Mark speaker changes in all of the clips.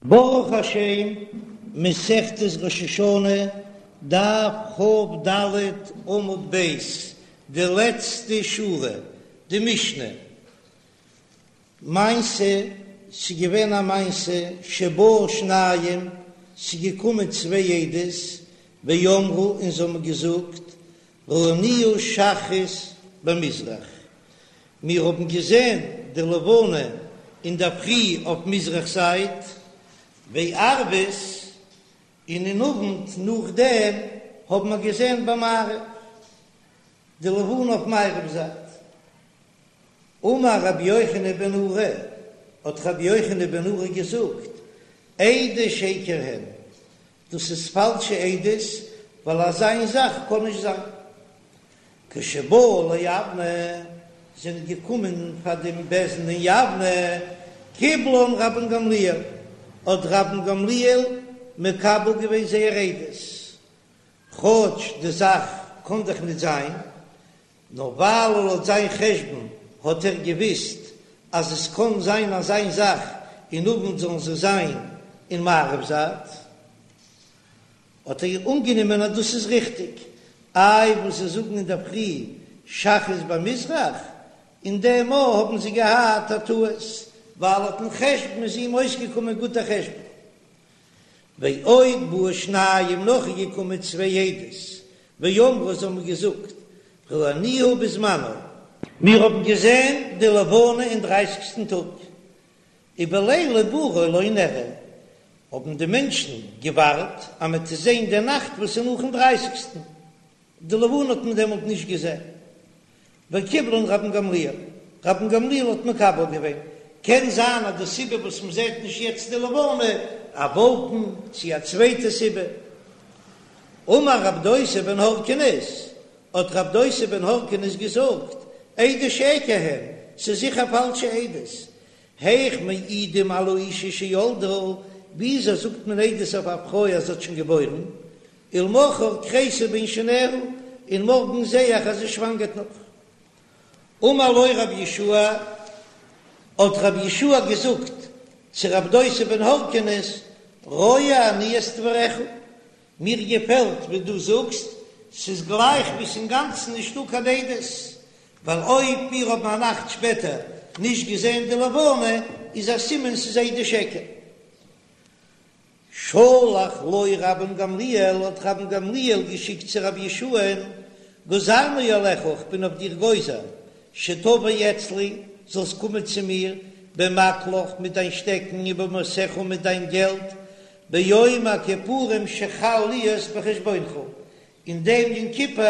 Speaker 1: ברוך השם, מסכת ראש השנה, דף כ"ד עמוד ב', די לעצטע שורה, די משנה. מעשה, ס'איז געווען א מעשה, שבאו שניים, ס'איז געקומען צוויי עדות, ואמרו, און זיי האבן געזאגט, ראינוה שחרית במזרח, מיר האבן געזען די לבנה אינדערפרי אויף מזרח זייט, וערבית, און אין אוונט נאכדעם האבן מיר געזען במערב, די לבנה אויף מערב זייט. אמר רבי יוחנן בן נורי, האט רבי יוחנן בן נורי געזאגט, עדי שקר הן, דאס איז פאלשע עדות, ווייל אזא זאך קען נישט זיין. כשבאו ליבנה, זענען געקומען פאר דעם בית דין אין יבנה, קיבלן רבן גמליאל, האט רבן גמליאל מקבל געווען זייער עדות, כאטש די זאך קען דאך נישט זיין, נאר ווייל לויט זיין חשבון האט ער געוויסט אז עס קען זיין אזא זאך אין אוונט זאלן זיי זיין אין מערב זייט, האט ער אנגענומען אז דאס איז ריכטיג, איי וואס זיי זאגן אינדערפרי שחרית במזרח, אין דעם מאל האבן זיי געהאט א טעות, ווייל לויטן חשבון איז אים אויסגעקומען גוט דער חשבון. ועוד באו שניים נאך איז געקומען צוויי עדות, ואמרו זיי האבן געזאגט ראינוה בזמנה. מיר האבן געזען די לבנה אין דרייסיגסטן טאג, ובליל עיבורה לא נראה, האבן די מענטשן געווארט אז מען וועט זען די נאכט וואס איז נאכן דרייסיגסטן, די לבנה האט מען דעמאלט נישט געזען. וקיבלן רבן גמליאל, רבן גמליאל האט מקבל געווען, קען זיין אז די סיבה וואס מען זעט נישט יעצט די לבנה, א וואלקן, צי א צווייטע סיבה. אמר רב דוסא בן הרכינס, האט רב דוסא בן הרכינס געזאגט, עדי שקר הן, ס'איז זיכער פאלשע עדות, היאך מעידים על האשה שילדה, וויאזוי זאגט מען עדות אויף א פרוי אז זי האט שוין געבוירן, ולמחר כרסה בין שיניה, און מארגן זע איך אז זי שוואנגערט נאך. אמר לו רבי יהושע, האט רבי יהושע געזאגט צו רב דוסא בן הרכינס, רואה אני את דבריך, מיר געפעלט ווי דו זאגסט, ס'איז גלייך ווי ס'אינגאנצן נישטא קיין עדות, ווייל אויב מיר האבן א נאכט שפעטער נישט געזען די לבנה, איז א סימן ס'איז עדי שקר. שלח לו רבן גמליאל, האט רבן גמליאל געשיקט צו רבי יהושע'ן, גזרנו עליך, איך בין אויף דיר גוזר, שתבוא אצלי, זאלסט קומען צו מיר, במקלך, מיט דיין שטעקן, ובמעותיך, מיט דיין געלט, ביום הכיפורים שחל להיות בחשבונך, אין דעם יום כיפור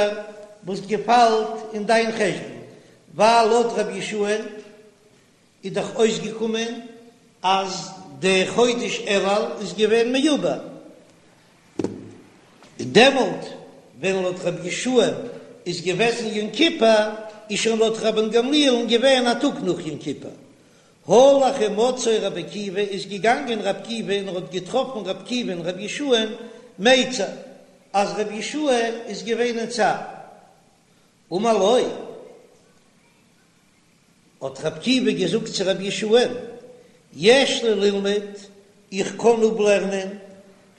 Speaker 1: וואס געפאלט אין דיין חשבון, ווייל לויט רבי יהושע'ן איז דאך אויסגעקומען אז די חודש אלול איז געווען מעובר, און דעמאלט ווען לויט רבי יהושע איז געוועזן יום כיפור, איז שוין לויט רבן גמליאל'ן געווען א טאג נאך יום כיפור. הלך ומצאו רבי עקיבא איז געגאנגען רבי עקיבא און ער האט געטראפן רבי עקיבא'ן רבי יהושע'ן מיצר אז רבי יהושע איז געווען אין צער. אמר לו. האט רבי עקיבא געזאגט צו רבי יהושע'ן, יש לי ללמוד, איך קען אפלערנען,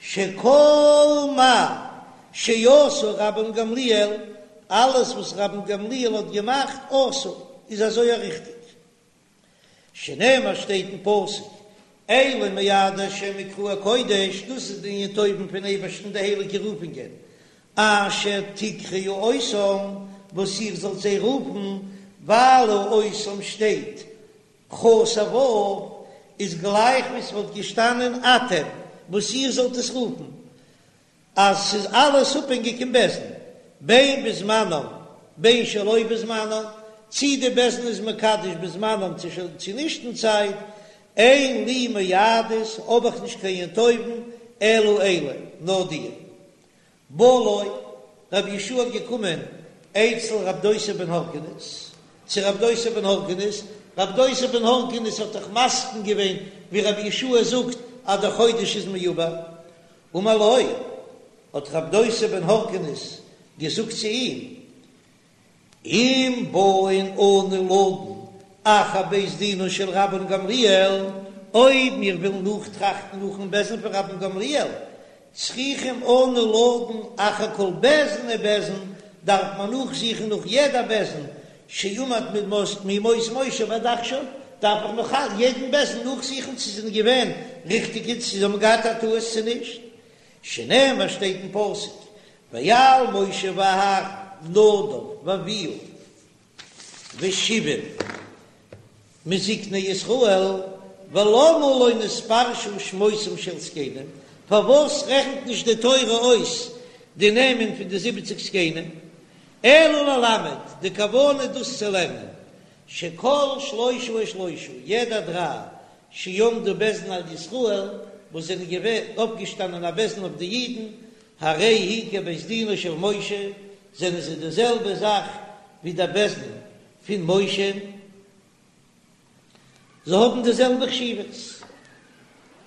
Speaker 1: שכל מה שעשה רבן גמליאל, אלעס וואס רבן גמליאל האט געמאכט, עשוי, איז אזוי א ריכטיג. שנאמר שטייט אין פסוק, אלה מועדי השם מקראי קודש, דאס איז די ימים טובים פון אייבערשטן די הייליגע רופונגען, אשר תקראו אותם, וואס איר זאלט זיי רופן, ווייל אותם שטייט חסר ו', איז גלייך ווי ס'וואלט געשטאנען אתם, וואס איר זאלט עס רופן, אז ס'איז אלעס אפהענגיק אין בית דין, בין בזמנם בין שלא בזמנם, צי די בית דין איז מקדש בזמנם צו נישט אין צייט, אין לי מועדות, האב איך נישט קיין יום טובים, אלא אלה, נאר די. בא לו, רבי יהושע האט געקומען אצל רב דוסא בן הרכינס, צו רב דוסא בן הרכינס, רב דוסא בן הרכינס האט דאך מסכים געווען ווי רבי יהושע זאגט אז דער חודש איז מעובר, אמר לו, האט רב דוסא בן הרכינס געזאגט צו אים, אם באין אנו לדון אחר בית דינו של רבן גמליאל, אויב מיר ווילן נאכטראכטן נאכן בית דין פון רבן גמליאל, צריכים אנו לדון אחר כל בית דין ובית דין, דארף מען נאכזוכן נאך יעדע בית דין שעמד מימות משה ועד עכשיו, דארף איך נאך יעדן בית דין נאכזוכן צו זיי זענען געווען ריכטיגע, צו זיי האבן געהאט א טעות צו נישט, שנאמר שטייט אין פסוק ואל משה ואהרן נדב ואביהוא ושבעים מזקני ישראל, ולמה לא נתפרשו שמותם של זקנים, פארוואס רעכנט נישט די תורה אויס די נעמען פון די זיבעציג זקנים, אלא ללמד, די כוונה איז דאס צו לערנען, שכל שלושה ושלושה, יעדע דריי, שעמדו בית דין על ישראל, וואס זענען געווען אויפגעשטאנען א בית דין אויף די אידן, הרי היא כבית דינו של משה, זענען זיי די זעלבע זאך ווי דער בית דין פון משה, זיי האבן די זעלבע חשיבות.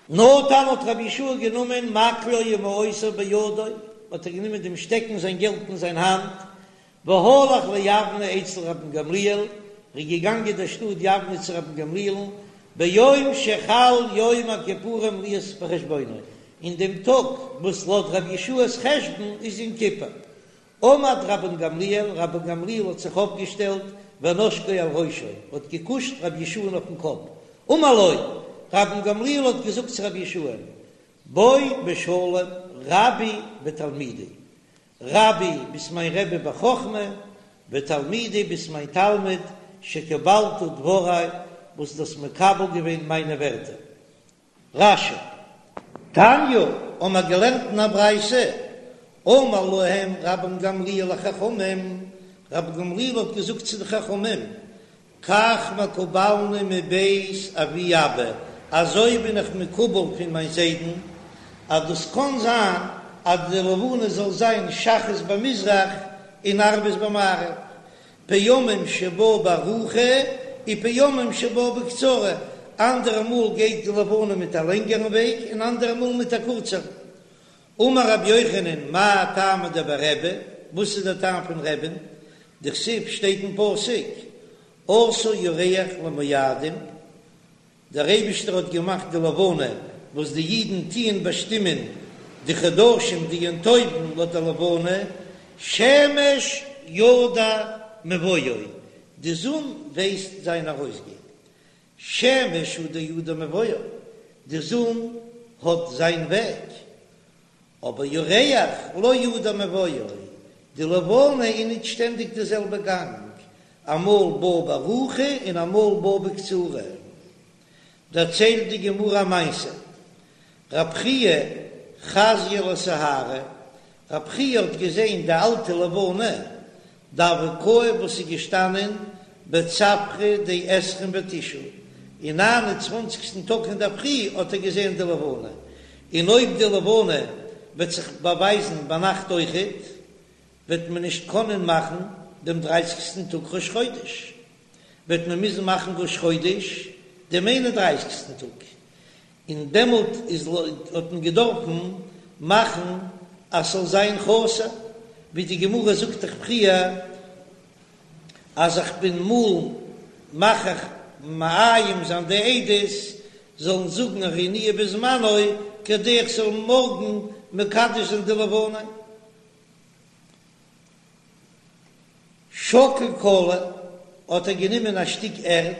Speaker 1: נטל האט רבי יהושע גענומען מקלו ומעותיו בידו, האט ער גענומען דעם שטעקן זיין געלט אין זיין האנט, והלך ליבנה אצל רבן גמליאל, ער איז געגאנגען אין דער שטאט יבנה צו רבן גמליאל'ן, ביום שחל יום הכיפורים להיות בחשבונו, אין דעם טאג וואס לויט רבי יהושע'ס חשבון איז יום כיפור. עמד רבן גמליאל, רבן גמליאל האט זיך אויפגעשטעלט, ונשקו על ראשו, האט געקושט רבי יהושע'ן אויפן קאפ, אמר לו, רבן גמליאל האט געזאגט צו רבי יהושע'ן, בוא בשלום רבי ותלמידי, רבי ביסט מיין רבי בחכמה, ותלמידי ביסט מיין תלמיד, שקיבלת דברי, וואס דו האסט מקבל געווען מיינע ווערטער. רש"י. תניא, האבן מיר געלערנט אין א ברייתא, אמר להם רבן גמליאל לחכמים, רבן גמליאל האט געזאגט צו די חכמים, כך מקובלני מבית אבי אבא, אזוי בין איך מקובל פון מיין זיידן, אז דאס קען זיין אז די לבנה זאל זיין שחרית במזרח און ערבית במערב, פעמים שבאה בארוכה ופעמים שבאה בקצרה, אנדערע מאל גייט די לבנה מיט א לענגערן וועג און אנדערע מאל מיט א קורצערן. אמר רבי יוחנן מאי טעמא דבי רבי, וואס איז דער טעם פון רבי'ן, דכתיב שטייט אין פסוק עשה ירח למועדים, דער אייבישטער האט געמאכט די לבנה וואס די אידן טוען באשטימען די חדשים די יום טובים לויט די לבנה, שמש ידע מבואו, די זון ווייסט זיין ארויסגיין, שמש הוא דידע מבואו, די זון האט זיין וועג, אבער ירח לא ידע מבואו, די לבנה איז ניט שטענדיג די זעלבע גאנג, אמאל באה בארוכה און אמאל באה בקצרה. דערציילט די גמרא א מעשה, רב חייא חזייה לסיהרא, רב חייא האט געזען די אלטע לבנה דהוה קאי וואס איז געשטאנען בצפרא דעשרים ותשעה, אין ניין און צוואנציגסטן טאג אין דער פרי האט ער געזען די לבנה, און אויב די לבנה וועט זיך באווייזן ביינאכט אויכעט, וועט מען נישט קענען מאכן דעם דרייסיגסטן טאג ראש חודש, וועט מען מוזן מאכן ראש חודש דעם איין און דרייסיגסטן טאג, און דעמאלט איז האט מען געדארפן מאכן אז ס'זאל זיין חסר, ווי די גמרא זאגט דאך פריער אז איך בין מאל מכריח מאיים זיין די עדות זאלן זאגן ראינוה בזמנו כדי איך זאל מארגן מקדש זיין די לבנה. שקל קלא האט ער גענומען א שטיק ערד,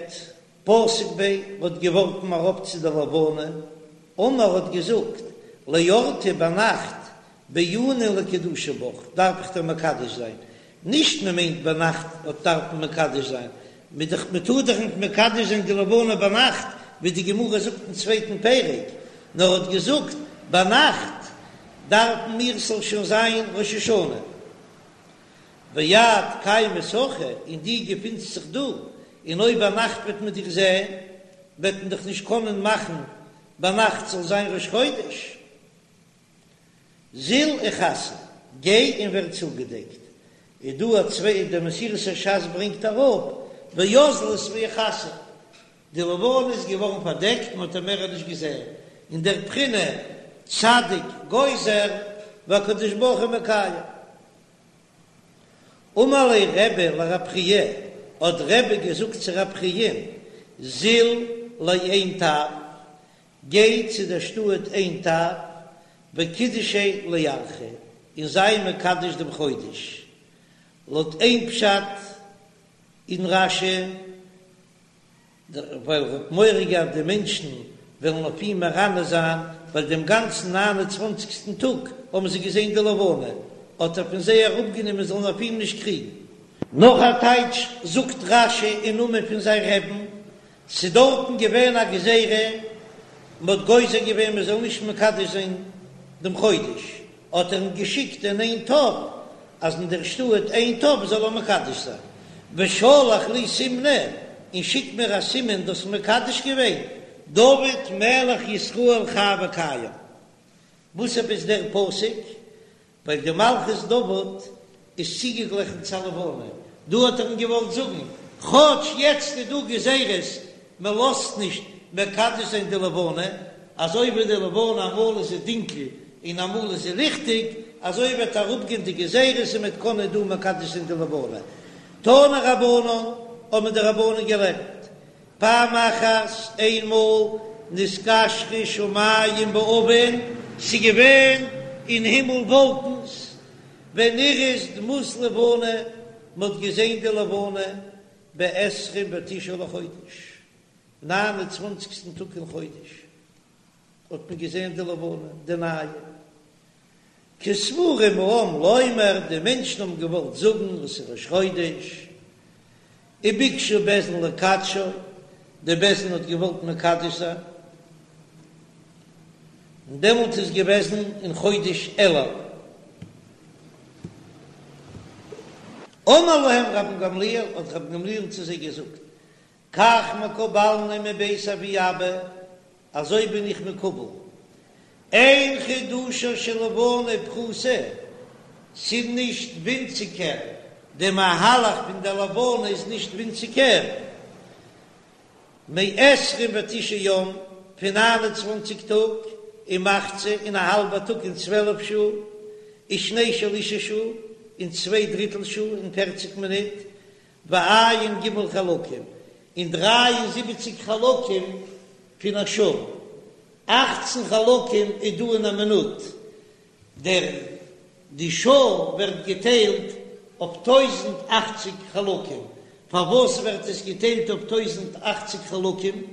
Speaker 1: פתק ביה האט געווארפן אראפ צו די לבנה, אמר האט געזאגט, לאורתא ביינאכט בעינא לקדושי בך דארף איך דיר מקדש זיין, נישט מען מיינט ביינאכט האט דארף מען מקדש זיין, מען טאר דאך נישט מקדש זיין די לבנה ביינאכט ווי די גמרא זאגט אין צווייטן פרק, נאר האט געזאגט ביינאכט דארפן מיר ס'זאל שוין זיין ראש השנה. ואת קיימת הכא, און דו געפינסט זיך דא, און אויב ביינאכט וועט מען דיך זען, וועט מען דיך נישט קענען מאכן ביינאכט זאל זיין ראש חודש. זיל איכסי, גיי און ווער צוגעדעקט. איז דא א צוויי, דער מסורת הש"ס ברענגט אראפ, ואזלת ואיכסה, די לבנה איז געווארן פארדעקט, מען האט איר מער נישט געזען, אין דער בחינה צדיק גוזר והקדוש ברוך הוא מקיים. אמר ליה רבי לרב חייא, האט רבי געזאגט צו רב חייא, זיל לעין טב. גיי צו דער שטאט עין טב, וקידשיה לירחא, און זיי מקדש דעם חודש. לויט איין פשט אין רש"י, ווייל ער האט מורא געהאט די מענטשן וועלן אויף אים מרננה זיין, ווייל דעם גאנצן ניין און צוואנציגסטן טאג האבן זיי געזען די לבנה, האט ער פון זיי אראפגענומען זאלן אויף אים נישט קריגן. נאך א טייטש זאגט רש"י אין נאמען פון זיין רעבן, ס'איז דארטן געווען א גזירה, מ'האט גוזר געווען מ'זאל נישט מקדש זיין דעם חודש, האט ער אים געשיקט אין עין טב, אז אין דער שטאט עין טב זאל ער מקדש זיין, ושלח לי סימנא, און שיק מיר א סימן דו האסט מקדש געווען, דוד מלך ישראל חי וקיים. וואס עפעס דער פסוק? ווייל די מלכות דוד איז צוגעגליכן צו א לבנה, דא האט ער אים געוואלט זאגן, כאטש יעצט איז דא גזירות, מען לאזט נישט מקדש זיין די לבנה, אזוי ווי די לבנה אמאל איז זי דינקל און אמאל איז זי ליכטיג, אזוי וועט אראפגיין די גזירות און מען וועט קענען דא מקדש זיין די לבנה. תנו רבנן, האבן די רבנן געלערנט, פעם אחת, איינמאל, נתקשרו שמים בעבים, ס'איז געווען אין הימל וואלקנס, ונראית דמות לבנה, מ'האט געזען די לבנה בעשרים ותשעה לחודש, ניין און צוואנציגסטן טאג אין חודש האט מען געזען די לבנה, די נייע. כסבורים העם לומר, די מענטשן האבן געוואלט זאגן וואס איז ראש חודש, וביקשו בית דין לקדשו, די בית דין האט געוואלט מקדש זיין, און דעמאלט איז געוועזן אין חודש אלול. אמר להם רבן גמליאל, האט רבן גמליאל צו זיי געזאגט, כך מקובלני מבית אבי אבא, אזוי בין איך מקובל, אין חידושה של לבנה פחותה, ס'איז נישט ווינציגער, די מהלך פון די לבנה איז נישט ווינציגער, מעשרים ותשעה יום, פון ניין און צוואנציג טאג, ומחצה, און א האלבע טאג און צוועלף שעה, ושני שלישי שעה, און צוויי דריטל שעה און פערציג מינוט, וע"ג חלקים, און דריי און זיבעציג חלקים פון א שעה, אכצן חלקים איז דא אין א מינוט, דער די שעה ווערט געטיילט אויף טויזנט אכציג חלקים, פארוואס ווערט עס געטיילט אויף טויזנט אכציג חלקים?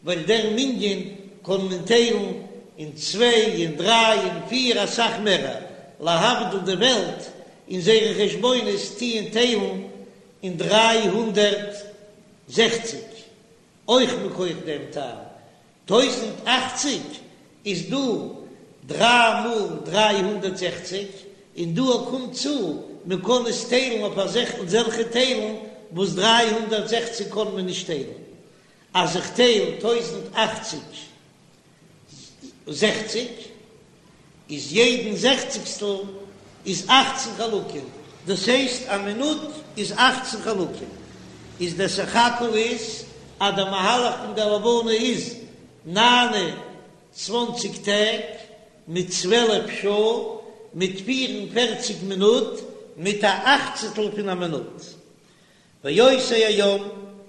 Speaker 1: ווייל דער מנין קען מען טיילן אין צוויי און דריי און פיר אסאך מערער, להבדיל די וועלט אין זייערע חשבונות טוען טיילן אין 360, אויך מכח דעם טעם, 1080 איז דא דריי מאל 360, און דא קומט צו מען קען עס טיילן אויף אזעלכע טיילן וואס 360 קען מען נישט טיילן, אז איך טייל 1080 זעכציג, איז יעדן זעכציגסטל איז אכצן חלקים, דאס הייסט א מינוט איז אכצן חלקים, איז דער סך הכל איז אז דער מהלך פון דער לבנה איז ניין און צוואנציג טעג מיט צוועלף שעה מיט פיר און פערציג מינוט מיט א אכצעטל פון א מינוט. ואותו היום,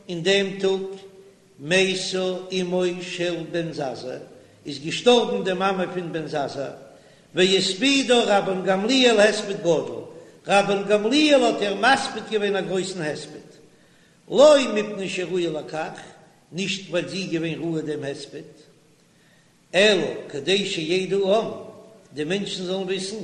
Speaker 1: אין דעם טאג, מתה אמו של בן זזא, איז געשטארבן די מאמע פון בן זזא, והספידה רבן גמליאל הספד גדול, רבן גמליאל האט איר מספיד געווען א גרויסן הספד, לא מפני שראויה לכך, נישט ווייל זי איז געווען ראוי דעם הספד, אלא כדי שידע העם, די מענטשן זאלן וויסן,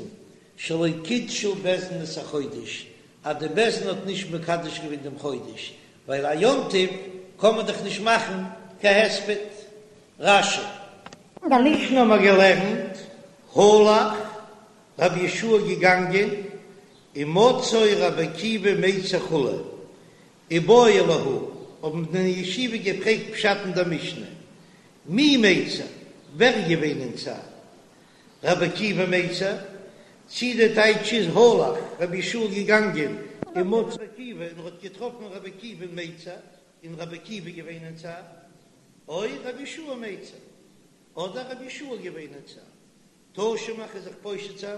Speaker 1: שלא קידשו בית דין את החודש, אז די בית דין האט נישט מקדש געווען דעם חודש, ווייל א יום טוב קען מען דאך נישט מאכן קיין הספד. רש"י. אין דער משנה האבן מיר געלערנט, הלך רבי יהושע געגאנגען, ומצאו רבי עקיבא מיצר כו', איבעיא להו, האבן די בני ישיבה געפרעגט פשט אין דער משנה, מי מיצר, ווער איז געווען אין צער? רבי עקיבא מיצר, צי די טייטש איז הלך רבי יהושע געגאנגען ומצא רבי עקיבא און ער האט געטראפן רבי עקיבא מיצר און רבי עקיבא געווען אין צער, או רבי יהושע מיצר, אדער רבי יהושע געווען אין צער. תא שמע כ'וועל זיך פושט זיין,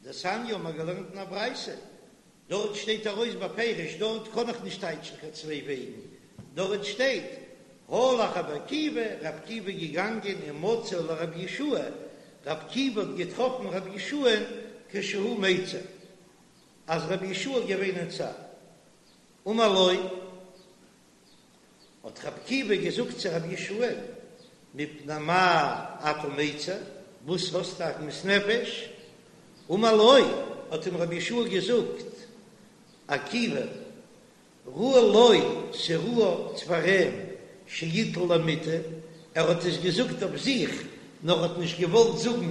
Speaker 1: דתניא האבן מיר געלערנט אין א ברייתא, דארט שטייט ארויס בפירוש, דארט קען איך נישט טייטשן קיין צוויי וועגן, דארט שטייט. הלך רבי עקיבא, רבי עקיבא איז געגאנגען ומצא לרבי יהושע, רבי עקיבא האט געטראפן רבי יהושע'ן כשהוא מיצר, אז רבי יהושע איז געווען אין צער. אמר לו, האט רבי עקיבא געזאגט צו רבי יהושע'ן, מפני מה אתה מיצר, וואס האסטו עגמת נפש? אמר לו, האט אים רבי יהושע געזאגט, עקיבא, ראוי לו, ס'ראוי פאר אים שיטול למיטה, ער האט עס געזאגט אויף זיך, נאר האט נישט געוואלט זאגן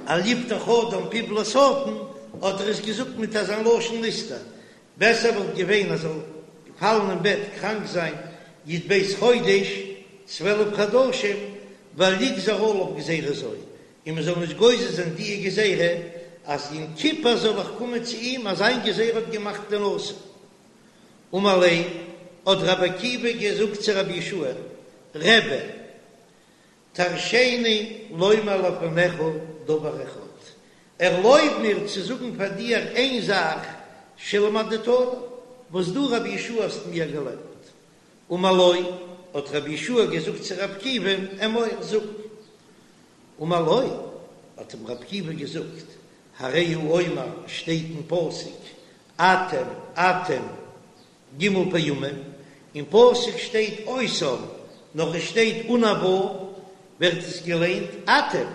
Speaker 1: אל יפתח אדם פיו לשטן, האט ער עס געזאגט מיט אזא לשון נסתר, בעסער וואלט געווען אז ער זאל פאלן אין בעט קראנק זיין י"ב חודש, 12 חדשים, ואל יגזור עליו גזירה זו, און מען זאל נישט גוזר זיין דיע גזירה אז יום כיפור זאל איך קומען צו אים אז זיין גזירה האט געמאכט די נשיא. אמר ליה, האט רבי עקיבא געזאגט צו רבי יהושע, רבי, תרשני לומר לפניך דבר אחד, ערלויב מיר צו זאגן פאר דיר איין זאך שלמדתני, וואס דו רבי יהושע האסט מיר געלערנט. אמר לו, האט רבי יהושע געזאגט צו רבי עקיבא, אמור, זאג. אמר לו, האט אים רבי עקיבא געזאגט, הרי הוא אומר, שטייט אין פסוק, אתם אתם ג' פעמים, אין פסוק שטייט אותם, נאר עס שטייט אן א ו', ווערט עס געליינט אתם.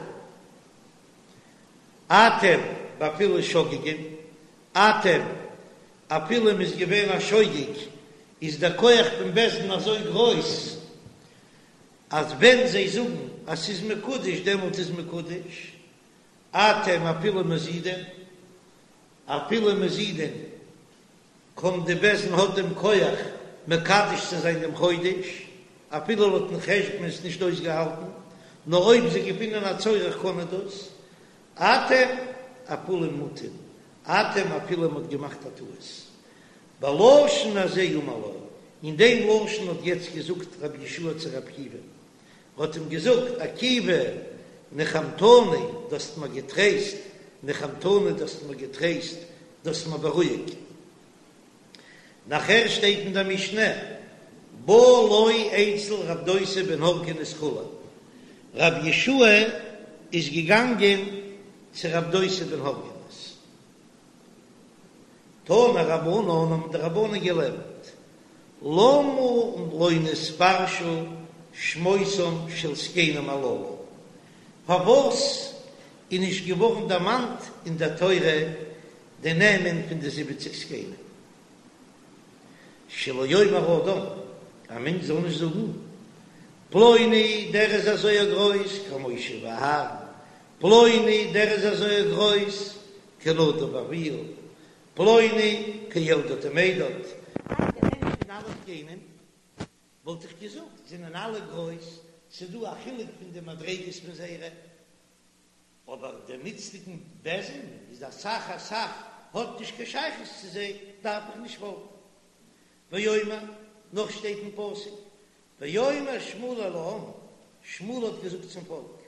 Speaker 1: אתם ואפילו שוגגין, אתם אפילו מ'איז געווען א שוגג, איז דער כח פון בית דין אזוי גרויס, אז ווען זיי זאגן אז ס'איז מקודש דעמאלט איז מקודש, אתם אפילו מזידין, אפילו מזידין קען די בית דין האט דעם כח מקדש צו זיין דעם חודש, אפילו לויטן חשבון איז נישט אויסגעהאלטן, נאר אויב זיי געפינען א צורך קען ער דאס, אתם אפילו מוטעין, אתם אפילו מ'האט געמאכט א טעות. בלשון הזה אמר לו, אין דעם לשון האט יעצט געזאגט רבי יהושע צו רבי עקיבא, ער האט אים געזאגט, עקיבא, נחמתני, דו האסט מיר געטרייסט, נחמתני, דו האסט מיר געטרייסט, דו האסט מיר בארואיגט. נאכער שטייט אין דער משנה, בא לו אצל רב דוסא בן הרכינס כו', רבי יהושע איז געגאנגען צו רב דוסא בן הרכינס, תנו רבנן האבן די רבנן געלערנט, למה לא נתפרשו שמותם של זקנים הללו, פארוואס איז נישט געווארן דערמאנט אין דער תורה די נעמען פון די זיבעציג זקנים? שלא יאמר אדם, א מענטש זאל נישט זאגן, פלוני דער איז אזוי א גרויס כמשה ואהרן, פלוני דער איז אזוי א גרויס כנדב ואביהוא, פלוני כאלדד ומידד. די נעמען פון אלע זקנים וואלט איך געזאגט זענען אלע גרויס, ס'דא א חילוק פון די מדריגות פון זייערע, אבער דעם איצטיגן בית דין איז אסאך אסאך האט נישט קיין שייכות צו זיי, דארף איך נישט פאלגן. ואומר, נאך שטייט אין פסוק, ויאמר שמואל אל העם, שמואל האט געזאגט צום פאלק,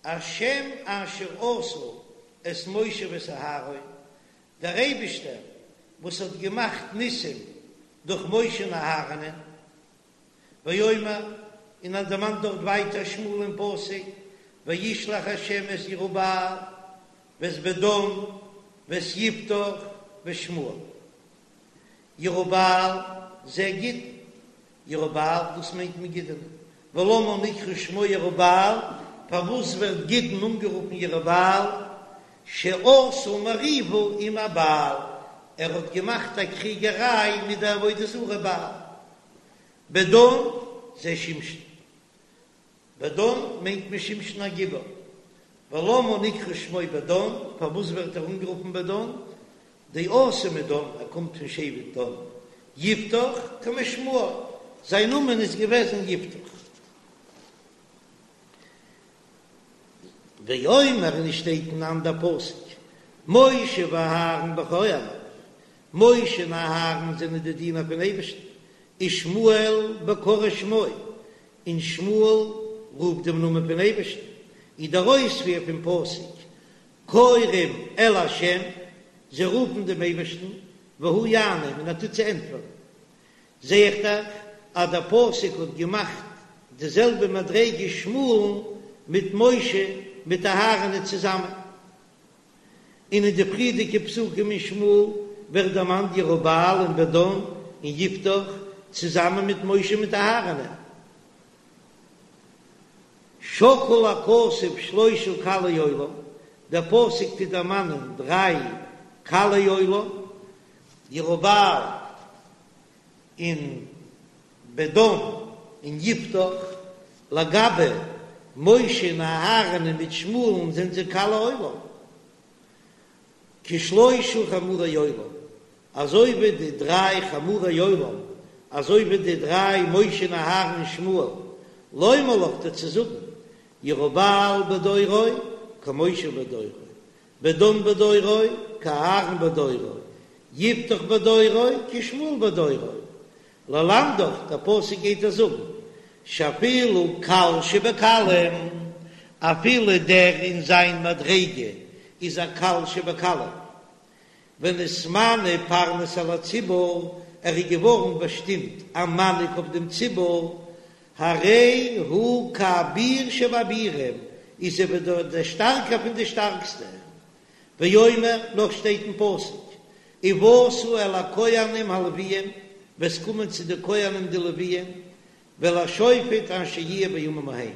Speaker 1: השם אשר עשה את משה ואת אהרן, דער אייבישטער וואס האט געמאכט ניסים דורך משה און אהרנ'ען, ואומר, און ער דערמאנט דארט ווייטער שמואל אין פסוק, וישלח השם את ירובעל ואת בדן ואת יפתח ואת שמואל. ירובעל זה גדעון, ירובעל דאס מיינט מען גדעון, ולמה נקרא שמו ירובעל, פארוואס ווערט גדעון אנגערופן ירובעל, שעשה מריבה עם הבעל, ער האט געמאכט א קריגעריי מיט די עבודה זרה בעל. בדן זה שמשון, בדן מיינט מען שמשון הגיבור, ולמה נקרא שמו בדן, פארוואס ווערט ער אנגערופן בדן, דאתא מדן, ער קומט פון שבט דן, יפתח כמשמעו, זיין נאמען איז געוועזן יפתח. ואומר און עס שטייט אין אנדער פסוק, משה ואהרן בכהניו, משה און אהרן זענען די דינער פון אייבערשטן, ושמואל בקוראי שמו, און שמואל רופט דעם נאמען פון אייבערשטן, איז דער אויספיר פון פסוק, קוראים אל ה', זיי רופן דעם אייבערשטן, והוא יענם, און ער טוט זיי ענטפערן. זע איך דאך. אז דער פסוק האט געמאכט די זעלבע מדריגה שמואל'ן מיט משה מיט אהרן'ען צוזאמען. און אין די פריערדיגע פסוקים אין שמואל ווערט דערמאנט ירובעל און בדן און יפתח צוזאמען מיט משה מיט אהרן'ען. שקל הכתוב שלושה קלי עולם, דער פסוק טוט דערמאנען דריי קלי עולם, ירובעל און בדן און יפתח, לגבי משה און אהרן מיט שמואל'ן זענען זיי קלי עולם, כשלושה חמורי עולם, אזוי ווי די דריי חמורי עולם, אזוי ווי די דריי משה און אהרן און שמואל, לומר לך דיר צו זאגן, ירובעל בדורו כמשה בדורו, בדן בדורו כאהרן בדורו, יפתח בדורו כשמואל בדורו, ללמדך, דער פסוק גייט דיר זאגן, שאפילו קל שבקלים, אפילו דער אין זיין מדריגה איז א קל שבקלים, ונתמנה פרנס על הציבור, ער איז געווארן באשטימט א מנהיג אויף דעם ציבור, הרי הוא כאביר שבאבירים, איז ער ווי דער שטארקער פון די שטארקסטע. ואומר, נאך שטייט אין פסוק, ובאת אל הכהנים הלוויים, וועסט קומען צו די כהנים די לוויים, ואל השופט אשר יהיה בימים ההם,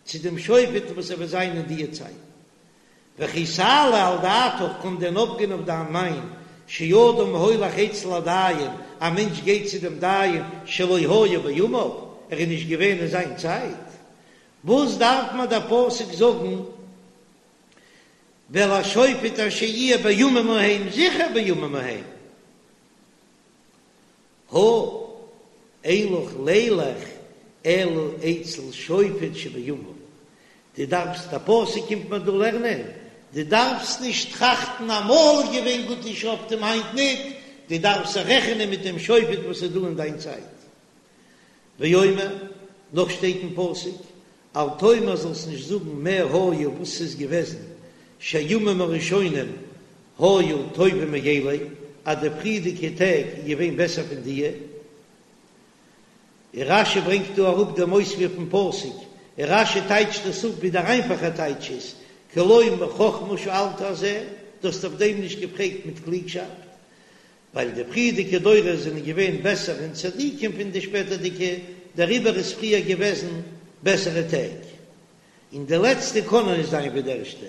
Speaker 1: צו דעם שופט וואס ער וועט זיין אין דיע צייטן. וכי תעלה על דעתך, קען דען אויפגיין אויף דיין מיין, שאדם הולך אצל הדיין, א מענטש גייט צו דעם דיין שלא היה בימיו, ער איז נישט געווען אין זיין צייט, וואס דארף מיר דער פסוק זאגן ואל השופט אשר יהיה בימים ההם, זיכער בימים ההם. הא, אין לך לילך אלא אצל שופט שבימיו, דו דארפסט, א פסוק קומט מיר דא לערנען, דו דארפסט נישט טראכטן אמאל איז געווען גוטע שופטים היינט ניט, דו דארפסט זיך רעכענען מיט דעם שופט וואס איז דא אין דיין צייט. ואומר, נאך שטייט אין פסוק, אל תאמר זאלסט נישט זאגן מה היה וואס ס'איז געוועזן שהימים הראשונים היו טובים מאלה אז די פריערדיגע טעג איז געווען בעסער פון דיע. און רש"י ברענגט דא אראפ דעם אויספיר פון פסוק, און רש"י טייטשט עס אפ ווי דער איינפאכער טייטש איז, כי לא מחכמה שאלת על זה, דו האסט אויף דעם נישט געפרעגט מיט קלוגשאפט, ווייל די פריערדיגע דורות זענען געווען בעסער אין צדיקים פון די שפעטערדיגע, דעריבער איז פריער געוועזן בעסערע טעג, און די לעצטע קענען נישט זיין ווי די ערשטע.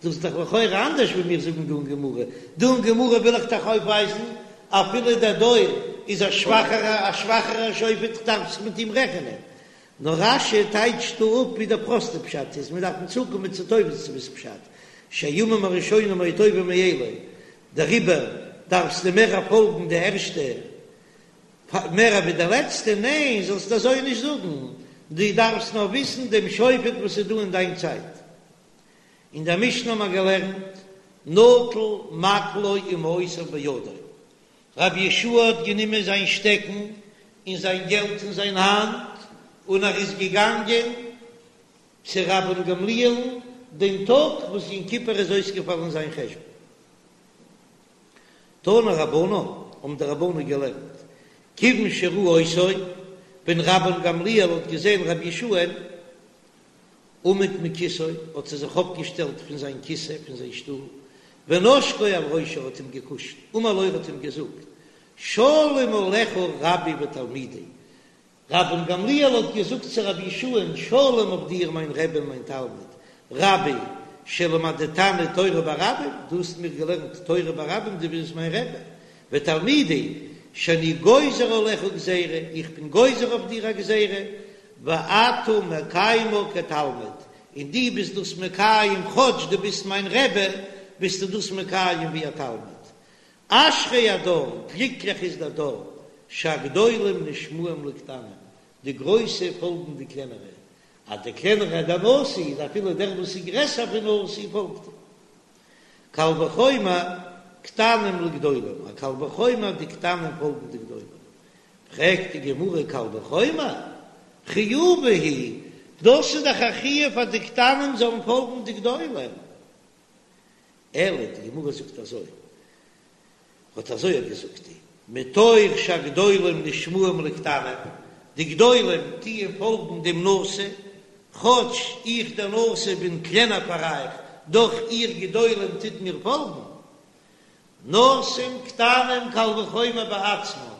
Speaker 1: דאס איז דאך לכאורה אנדערש ווי מיר זאגן דא אין גמרא, דא אין גמרא וויל איך דאך אויפווייזן אפילו דער דור איז א שוואכערע א שוואכערע שופט דארף זיך מיט אים רעכענען, נאר רש"י טייטשט דא אפ ווי דער פראסטער פשט איז, מיר דארפן צוקומען צו תוספות'ס פשט, שהימים הראשונים היו טובים מאלה, דעריבער דארפסטו מער פאלגן די ערשטע מער ווי די לעצטע, ניין זאלסט אזוי נישט זאגן, דו דארפסט נאר וויסן דעם שופט וואס איז דא אין דיין צייט. אין דער משנה האט מען געלערנט נטל מקלו ומעותיו בידו, רבי יהושע האט גענומען זיין שטעקן און זיין געלט אין זיין האנט און ער איז געגאנגען צו רבן גמליאל'ן דעם טאג וואס יום כיפור איז אויסגעפאלן אין זיין חשבון. תנו רבנן, האבן די רבנן געלערנט, כיוון שראה אותו, ווען רבן גמליאל האט געזען רבי יהושע'ן, עמד מכסאו, האט ער זיך אויפגעשטעלט פון זיין כיסא, פון זיין שטול, ונשקו על ראשו, האט אים געקושט, אמר לו, ער האט אים געזאגט, שלום עליך רבי ותלמידי, רבן גמליאל האט געזאגט צו רבי יהושע'ן, שלום אויף דיר מיין רבי און מיין תלמיד, רבי שלמדתני תורה ברבים, דו האסט מיר געלערנט תורה ברבים, דו ביסט מיין רבי, ותלמידי שאני גוזר עליך גזירה, איך בין גוזר אויף דיר א גזירה, ואתה מקיימה כתלמיד, און דו ביסט דאס מקיים, כאטש דו ביסט מיין רבי, ביסטו דאס מקיים ווי א תלמיד. אשרי הדור, גליקליך איז דער דור, שהגדולים נשמעים לקטנים, די גרויסע פאלגן די קלענערע, אז דער קלענערער דער נשיא איז אפילו דער וואס איז גרעסער פון נשיא פאלגט אים. קל וחומר קטנים לגדולים, א קל וחומר די קטנים פאלגן די גדולים. פרעגט די גמרא קל וחומר? חיובא הוא, דאס איז דאך א חיוב אז די קטנים זאלן פאלגן די גדולים. אלא די גמרא זאגט אזוי, האט אזוי געזאגט די, מתוך שהגדולים נשמעים לקטנים, די גדולים טוען פאלגן דעם נשיא, כאטש איך דער נשיא בין קלענער פאר אייך, דאך איר גדולים טוט מיר פאלגן. נושאין קטנים קל וחומר בעצמן,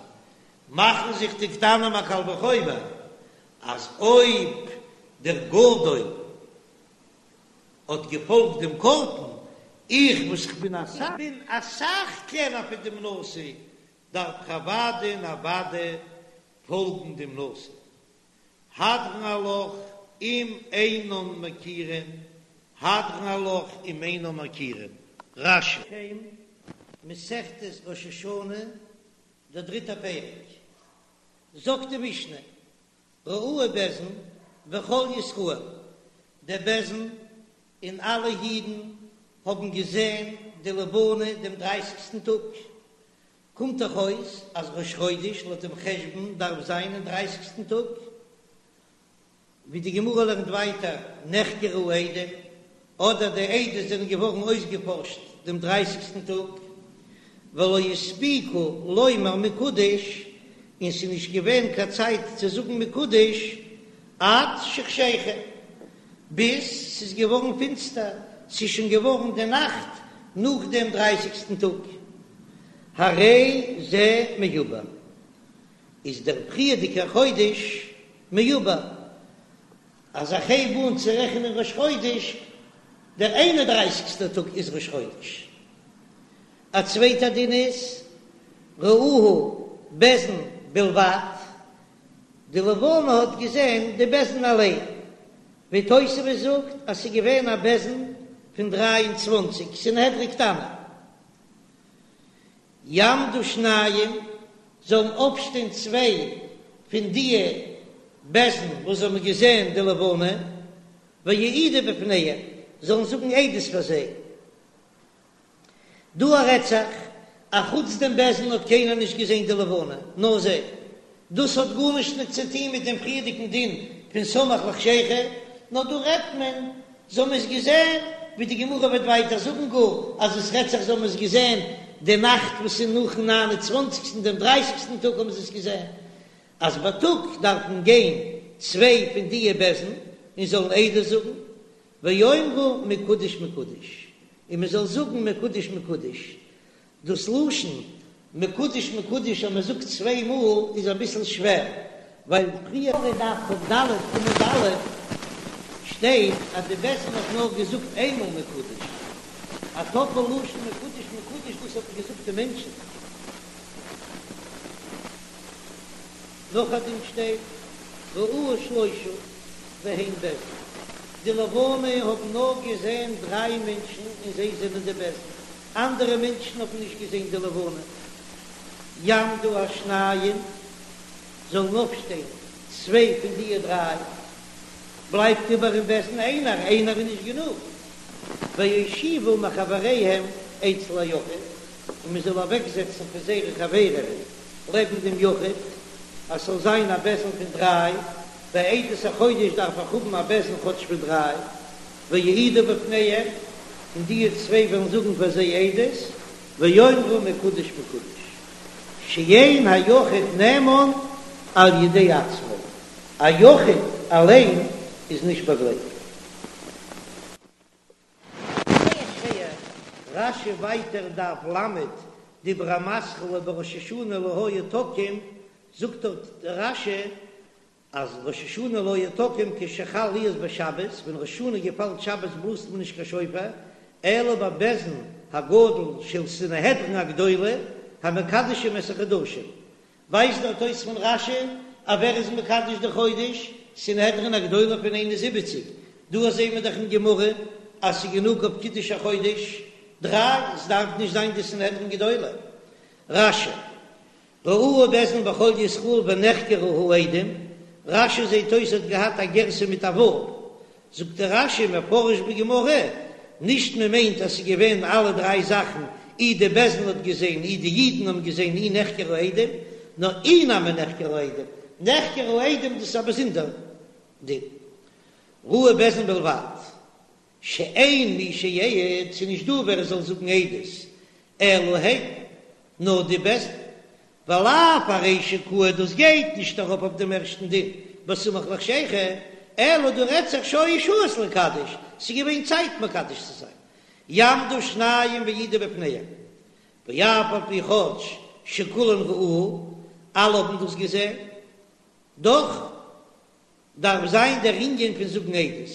Speaker 1: מאכן זיך די קטנים א קל וחומר אז אויב דער גדול האט געפאלגט דעם קטן, איך וואס כ'בין אסאך בין אסאך קלענער פון דעם נשיא, דארף איך אוודאי און אוודאי פאלגן דעם נשיא. הדרן עלך אם אינן מכירין, הדרן עלך אם אינן מכירין. רש"י. שם, מסכת ראש השנה, דער דריטער פרק, זאגט די משנה, ראוהו בית דין וכל ישראל, דער בית דין און אלע אידן האבן געזען די לבנה דעם דרייסיגסטן טאג, קומט דאך אויס אז ראש חודש לויט דעם חשבון דארף זיין אין דרייסיגסטן טאג, ווי די גמרא לערנט ווייטער נחקרו העדים, אדער די עדות זענען געווארן אויסגעפארשט דעם דרייסיגסטן טאג, ולא הספיקו לומר מקודש, און ס'איז נישט געווען קיין צייט צו זאגן מקודש עד שחשיכה, ביז ס'איז געווארן פינסטער, ס'איז שוין געווארן די נאכט נאך דעם דרייסיגסטן טאג, הרי זה מעובר, איז דער פריערדיגער חודש מעובר, אז איך הייב אן צו רעכענען ראש חודש, דער איין און דרייסיגסטער טאג איז ראש חודש. א צווייטע דין איז, ראוהו בית דין בלבד, די לבנה האט געזען די בית דין אליין, ווי תוספות זאגט אז ס'איז געווען א בית דין פון 23 סנהדרין קטנה. יעמדו שניים, זאלן אויפשטיין צוויי פון דיע בית דין וואס האבן געזען די לבנה, ויעידו בפניהם, זאלן זאגן עדות פאר זיי. דא רעדט זיך, אחוץ דעם בית דין האט קיינער נישט געזען די לבנה, נאר זיי. דאס האט גארנישט נישט צו טון מיט דעם פריערדיגן דין פון סמוך לחשיכה, נאר דא רעדט מען זיי האבן עס געזען, ווי די גמרא וועט ווייטער זאגן גאר אז עס רעדט זיך זיי האבן עס געזען די נאכט וואס איז נאכן ניין און צוואנציגסטן דעם דרייסיגסטן טאג האבן זיי עס געזען, אז בייטאג דארפן גיין צוויי פון דיע בית דין און זאלן עדות זאגן, ויאמרו מקודש מקודש, און מען זאל זאגן מקודש מקודש, דאס לשון מקודש מקודש אז מען זאגט צוויי מאל איז אביסל שווער, ווייל פריער אין דף כ"ד עמוד א' שטייט אז די בית דין האט נאר געזאגט איינמאל מקודש, א טאפל לשון מקודש מקודש דאס האט מען געזאגט די מענטשן. נאכדעם שטייט ראוהו שלושה והן בית דין, די לבנה האבן נאר געזען דריי מענטשן און זיי זענען די בית דין, אנדערע מענטשן האבן נישט געזען די לבנה. יעמדו השניים, זאלן אויפשטיין צוויי פון דיע דריי, בלייבט איבער אין בית דין איינער, איינער איז נישט גענוג, ויושיבו מחבריהם אצל היחיד, און מען זאל אוועקזעצן פון זייערע חברים לעבן דעם יחיד, אז ס'זאל זיין א בית דין פון דריי, ביי עדות החודש דארף איך האבן א בית דין כאטש פון דריי, ויעידו בפניהם, און די צוויי וועלן זאגן פאר זיי עדות, ויאמרו מקודש מקודש, שאין היחיד נאמן על ידי עצמו, א יחיד אליין איז נישט באגלייבט. זייער שווער, רש"י ווייטער דף ל', דיבור המתחיל ובראש השנה לא היו תוקעין, זאגט דארט רש"י אז ראש השנה לא היו תוקעין כשחל להיות בשבת, ווען ראש השנה געפאלט שבת בלאזט מען נישט קיין שופר, אלא בבית דין הגדול של סנהדרין הגדולה המקדשים את החדשים, ווייזט דארט אויס פון רש"י אז ווער איז מקדש די חודש? סנהדרין הגדולה פון 71, דא זעהן מיר דאך אין גמרא אז ס'איז גענוג אויף קידוש החודש דריי, ס'דארף נישט זיין די סנהדרין גדולה. רש"י, ראוהו בית דין וכל ישראל ונחקרו העדים, רש"י זעהט אויס האט געהאט א גירסא מיט א ו', זאגט דער רש"י מפרש בגמרא, נישט מען מיינט אז ס'איז געווען אלע דריי זאכן, אי די בית דין האט געזען, אי די אידן האבן געזען, אי נחקרו העדים, נאר אי נמי נחקרו העדים, נחקרו העדים דאס איז א באזונדער דין, ראוהו בית דין בלבד, שאין מי שיעיד, ס'איז נישט דא ווער עס זאל זאגן עדות, אלא הן, נאר די בית דין. ולאו ארישא קאי דאס גייט נישט ארויף אויף דעם ערשטן דין בסמוך לחשיכה, אלא דא רעדט זיך שהיו שהות לקדש, ס'איז געווען צייט מקדש צו זיין, יעמדו שניים ויעידו בפניהם, ואף על פי כאטש שכולן ראוהו, אלע האבן דאס געזען, דאך דארף זיין דער ענין פון זאגן עדות.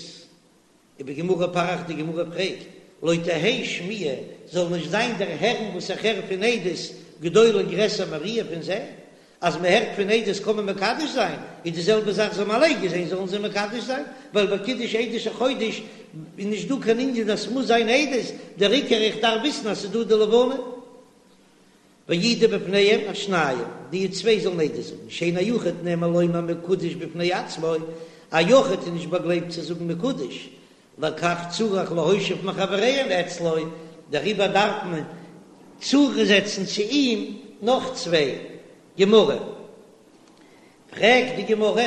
Speaker 1: ובגמרא פריך די גמרא פרעגט, לא תהא שמיעה, זאל נישט זיין דער הערן וואס איך הער פון עדות גדולה גרעסער מראיה פון זען, אז מען הערט פון עדות קען מען מקדש זיין, איז די זעלבע זאך זיי האבן אליין געזען זאלן זיי מקדש זיין, ווייל ביי קידוש עדות החודש איז נישט דא קיין ענין אז ס'מוז זיין עדות, דער עיקר איך דארף וויסן אז ס'איז דא די לבנה. ויעידו בפניהם השניים, די צוויי זאלן עדות זאגן, שאין היחיד נאמן לומר מקודש בפני עצמו, א יחיד איז נישט באגלייבט צו זאגן מקודש, לכך צריך להושיב מחבריהם אצלו, דעריבער דארף מען צוזעצן צו אים נאך צוויי. גמרא, פרעגט די גמרא,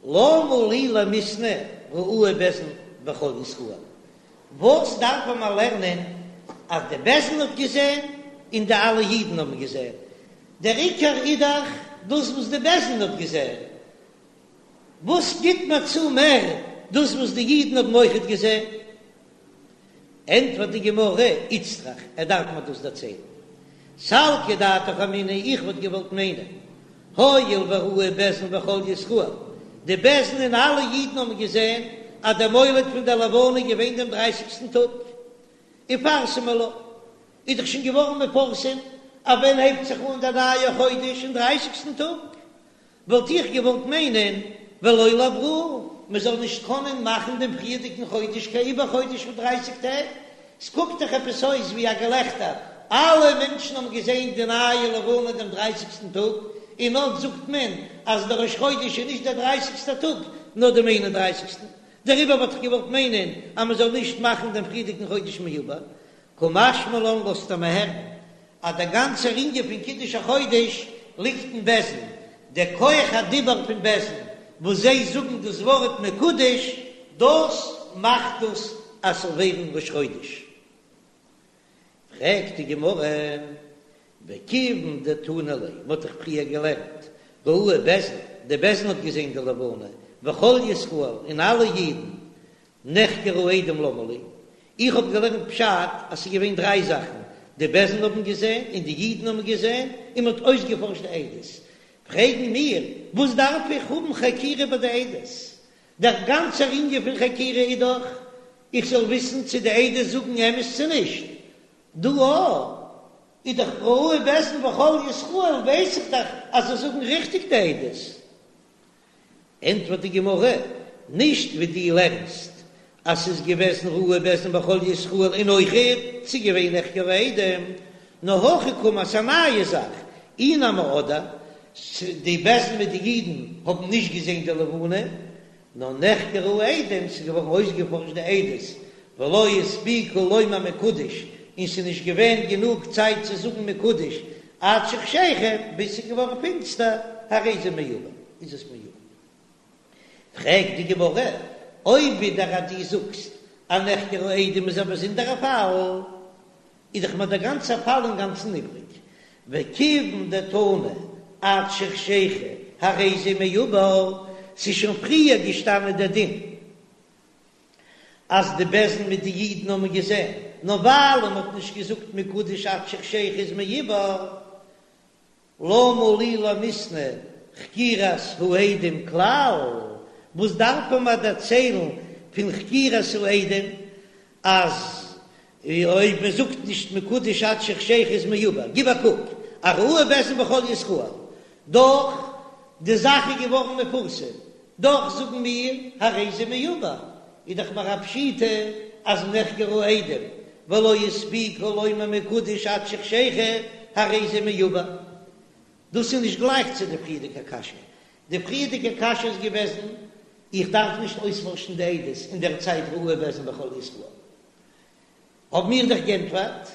Speaker 1: למה לי למיתנא ראוהו בית דין וכל ישראל, וואס דארף מען לערנען אז די בית דין האט געזען און די אלע אידן האבן געזען? דער עיקר איז דאך דאס וואס די בית דין האט געזען, וואס גיט מיר צו מער דאס וואס די אידן האבן אויכעט געזען? ענטפערט די גמרא, איצטריך, ער דארף מיר דאס דערציילן. סלקא דעתך אמינא, איך וואלט געוואלט מיינען, הואיל וראוהו בית דין וכל ישראל, די בית דין און אלע אידן האבן געזען אז דער מולד פון דער לבנה איז געווען דעם דרייסיגסטן טאג, איפרסמא לה, איז דאך שוין געווארן מפורסם אז ווען הייבט זיך אן דער נייער חודש אין דרייסיגסטן טאג, וואלט איך געוואלט מיינען ולא לעברוה, מען זאל נישט קענען מאכן דעם פריערדיגן חודש קיין עיבור חודש פון דרייסיג טעג, ס'קוקט דאך עפעס אויס ווי א געלעכטער, אלע מענטשן האבן געזען די נייע לבנה דעם דרייסיגסטן טאג, און אט זאגט מען אז דער ראש חודש איז נישט דער דרייסיגסטער טאג, נאר דעם איין און דרייסיגסטן, דעריבער וואלט איך געוואלט מיינען אז מען זאל נישט מאכן דעם פריערדיגן חודש מעובר, קא משמע לן לאזט ער מיר הערן אז דער גאנצער ענין פון קידוש החודש ליגט אין בית דין, דער כח הדיבור פון בית דין וואס זיי זאגן דאס ווארט מקודש, דאס מאכט דאס אז ס'זאל ווערן ראש חודש. פרעגט די גמרא, וכיוון דתנא ליה, מ'האט דאך פריער געלערנט, ראוהו בית דין, די בית דין האט געזען די לבנה, וכל ישראל, און אלע אידן, נחקרו העדים למה לי, איך האב געלערנט פשט אז ס'איז געווען דריי זאכן, די בית דין האבן געזען, און די אידן האבן געזען, און מ'האט אויסגעפארשט די עדות. פרעגן מיר, וואס דארף איך האבן חקירה ביי די עדות? דער גאנצער ענין פון חקירה איז דאך איך זאל וויסן צו די עדות זאגן אמת צו נישט. דא איז דאך ראוהו בית דין וכל ישראל ווייס איך דאך אז זיי זאגן ריכטיג די עדות. ענטפערט די גמרא, נישט ווי דו לערנסט אז ס'איז געוועזן ראוהו בית דין וכל ישראל און אויכעט ס'איז געווען נחקרו העדים, נאר הכי קאמר ס'איז א נייע זאך, אי נמי אדער די בית דין מיט די אידן האבן נישט געזען די לבנה, נאר נחקרו העדים, ס'איז געווארן אויסגעפארשט די עדות, ולא הספיקו לומר מקודש, און ס'איז נישט געווען גענוג צייט צו זאגן מקודש עד שחשיכה, ביז ס'איז געווארן פינסטער, הרי זה מעובר, איז עס מעובר. פרעגט די גמרא, אויב ווידער אז דו זאגסט אז נחקרו העדים איז א באזונדערע פאל, איז דאך מיר דער גאנצער פאל אינגאנצן איבריג, וכיוון דתנא עד שחשיכה הרי זה מעובר, ס'איז שוין פריער געשטאנען דער דין אז די בית דין מיט די אידן האבן געזען, נאר ווייל מען האט נישט געזאגט מקודש עד שחשיכה איז מעובר, למה לי למיתנא חקירת העדים כלל, וואס דארף מען מיר דערציילן פון חקירת העדים אז אויב מען זאגט נישט מקודש עד שחשיכה איז מעובר, גיב א קוק, א ראוהו בית דין וכל ישראל, דאך די זאך איז געווארן מפורסם, דאך זאגן מיר הרי זה מעובר, איז דאך מיר א פשיטא אז נחקרו העדים ולא הספיקו לומר מקודש עד שחשיכה הרי זה מעובר. דאס איז נישט גלייך צו די פריערדיגע קשיא, די פריערדיגע קשיא איז געוועזן איך דארף נישט אויספארשן די עדות אין דער צייט ראוהו בית דין וכל ישראל, האבן מיר דאך גענטפערט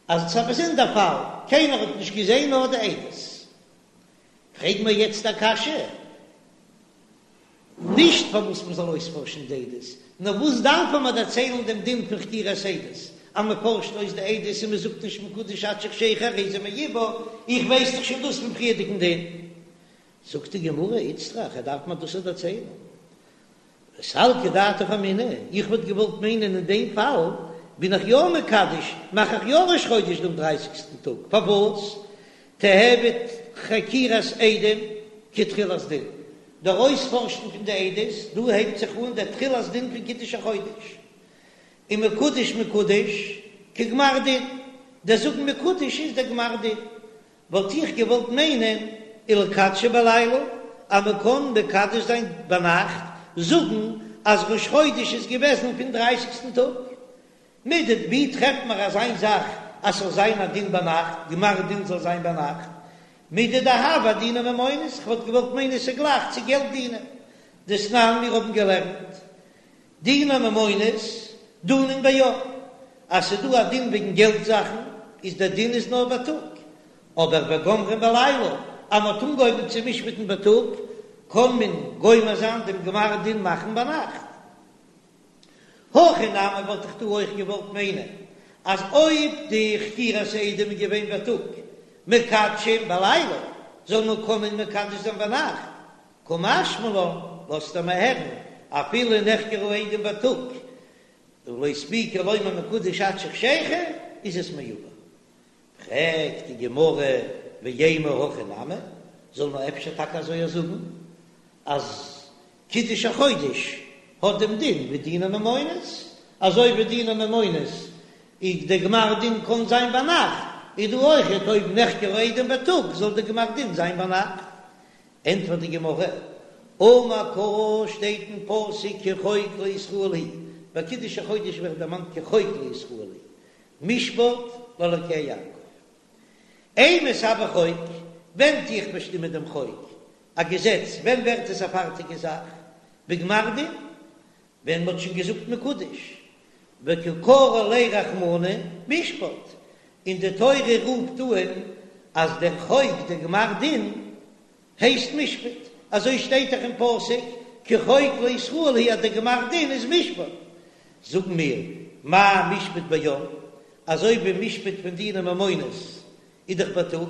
Speaker 1: אז עס איז א באזונדער פאל, קיינער האט נישט געזען נאר די עדות. פרעג מיר יעצט א קשיא, נישט פארוואס מען זאל אויספארשן די עדות, נאר וואס דארף מען דערציילן דעם דין פון חקירת עדות? אז מען פארשט אויס די עדות און מען זאגט נישט מקודש עד שחשיכה הרי זה מעובר, איך ווייס דאך שוין דאס פון פריערדיגן דין. זאגט די גמרא, איצטריך, ער דארף מיר דאס דערציילן. וסלקא דעתך אמינא, איך וואלט געוואלט מיינען אין דעם פאל בין איך יא מקדש, מאך איך יא ראש חודש דעם דרייסיגסטן טאג, פארוואס? תיהוי חקירת עדים כתחילת דין, דער אויספארשן פון די עדות, דא הייבט זיך אן דער תחילת דין פון קידוש החודש, און מקודש מקודש כגמר דין, דער זאגן מקודש איז דער גמר דין, וואלט איך געוואלט מיינען ולקדשי בלילה אז מען קען מקדש זיין ביינאכט, זאגן אז ראש חודש איז געוועזן פון דרייסיגסטן טאג. מידי ווי טרעפט מען אזיין זאך אז ס'זאל זיין א דין ביינאכט, גמר דין זאל זיין ביינאכט? מידי דהוה אדיני ממונות, כ'וואלט געוואלט מיינען ס'איז גלייך צו געלט דינים. דתנן מיר האבן געלערנט דיני ממונות דנין ביום, אז ס'איז דא א דין וועגן געלט זאכן איז דער דין איז נאר בייטאג, אבער וגומרין בלילה, אז מ'האט אנגעהויבן צו משפט'ן בייטאג קען מען גומר זיין דעם גמר דין מאכן ביינאכט. הכא נמי וואלט איך דא אויך געוואלט מיינען אז אויב די חקירת העדים איז געווען בייטאג מקדשין בלילה זאל מען קענען מקדש זיין ביינאכט, קא משמע לן, לאזט ער מיר הערן, אפילו נחקרו העדים בייטאג ולא הספיקו לומר מקודש עד שחשיכה איז עס מעובר. פרעגט די גמרא ואימא הכי נמי, זאל מען אפשר טאקע אזוי זאגן אז קידוש החודש האט דעם דין ווי דיני ממונות, אזוי ווי דיני ממונות איז די גמר דין קען זיין ביינאכט, איז דא אויכעט אויב נחקרו עדים בייטאג זאל די גמר דין זיין ביינאכט. ענטפערט די גמרא, אמר קרא שטייט אין פסוק כי חוק לישראל הוא, ביי קידוש החודש ווערט דערמאנט כי חוק לישראל הוא, משפט לאלקי יעקב. אימת הוי חוק, ווען טו איך באשטימען דעם חוק, א געזעץ, ווען ווערט עס א פארטיגע זאך? בגמר דין, ווען מ'האט שוין געזאגט מקודש, וקא קרי ליה רחמנא משפט, און די תורה רופט אן אז דער חוק, דער גמר דין, הייסט משפט, אזוי שטייט דאך אין פסוק כי חוק לישראל הוא אז דער גמר דין איז משפט, זאגן מיר, מה משפט ביום, אזוי ווי משפט פון דיני ממונות איז דאך בייטאג,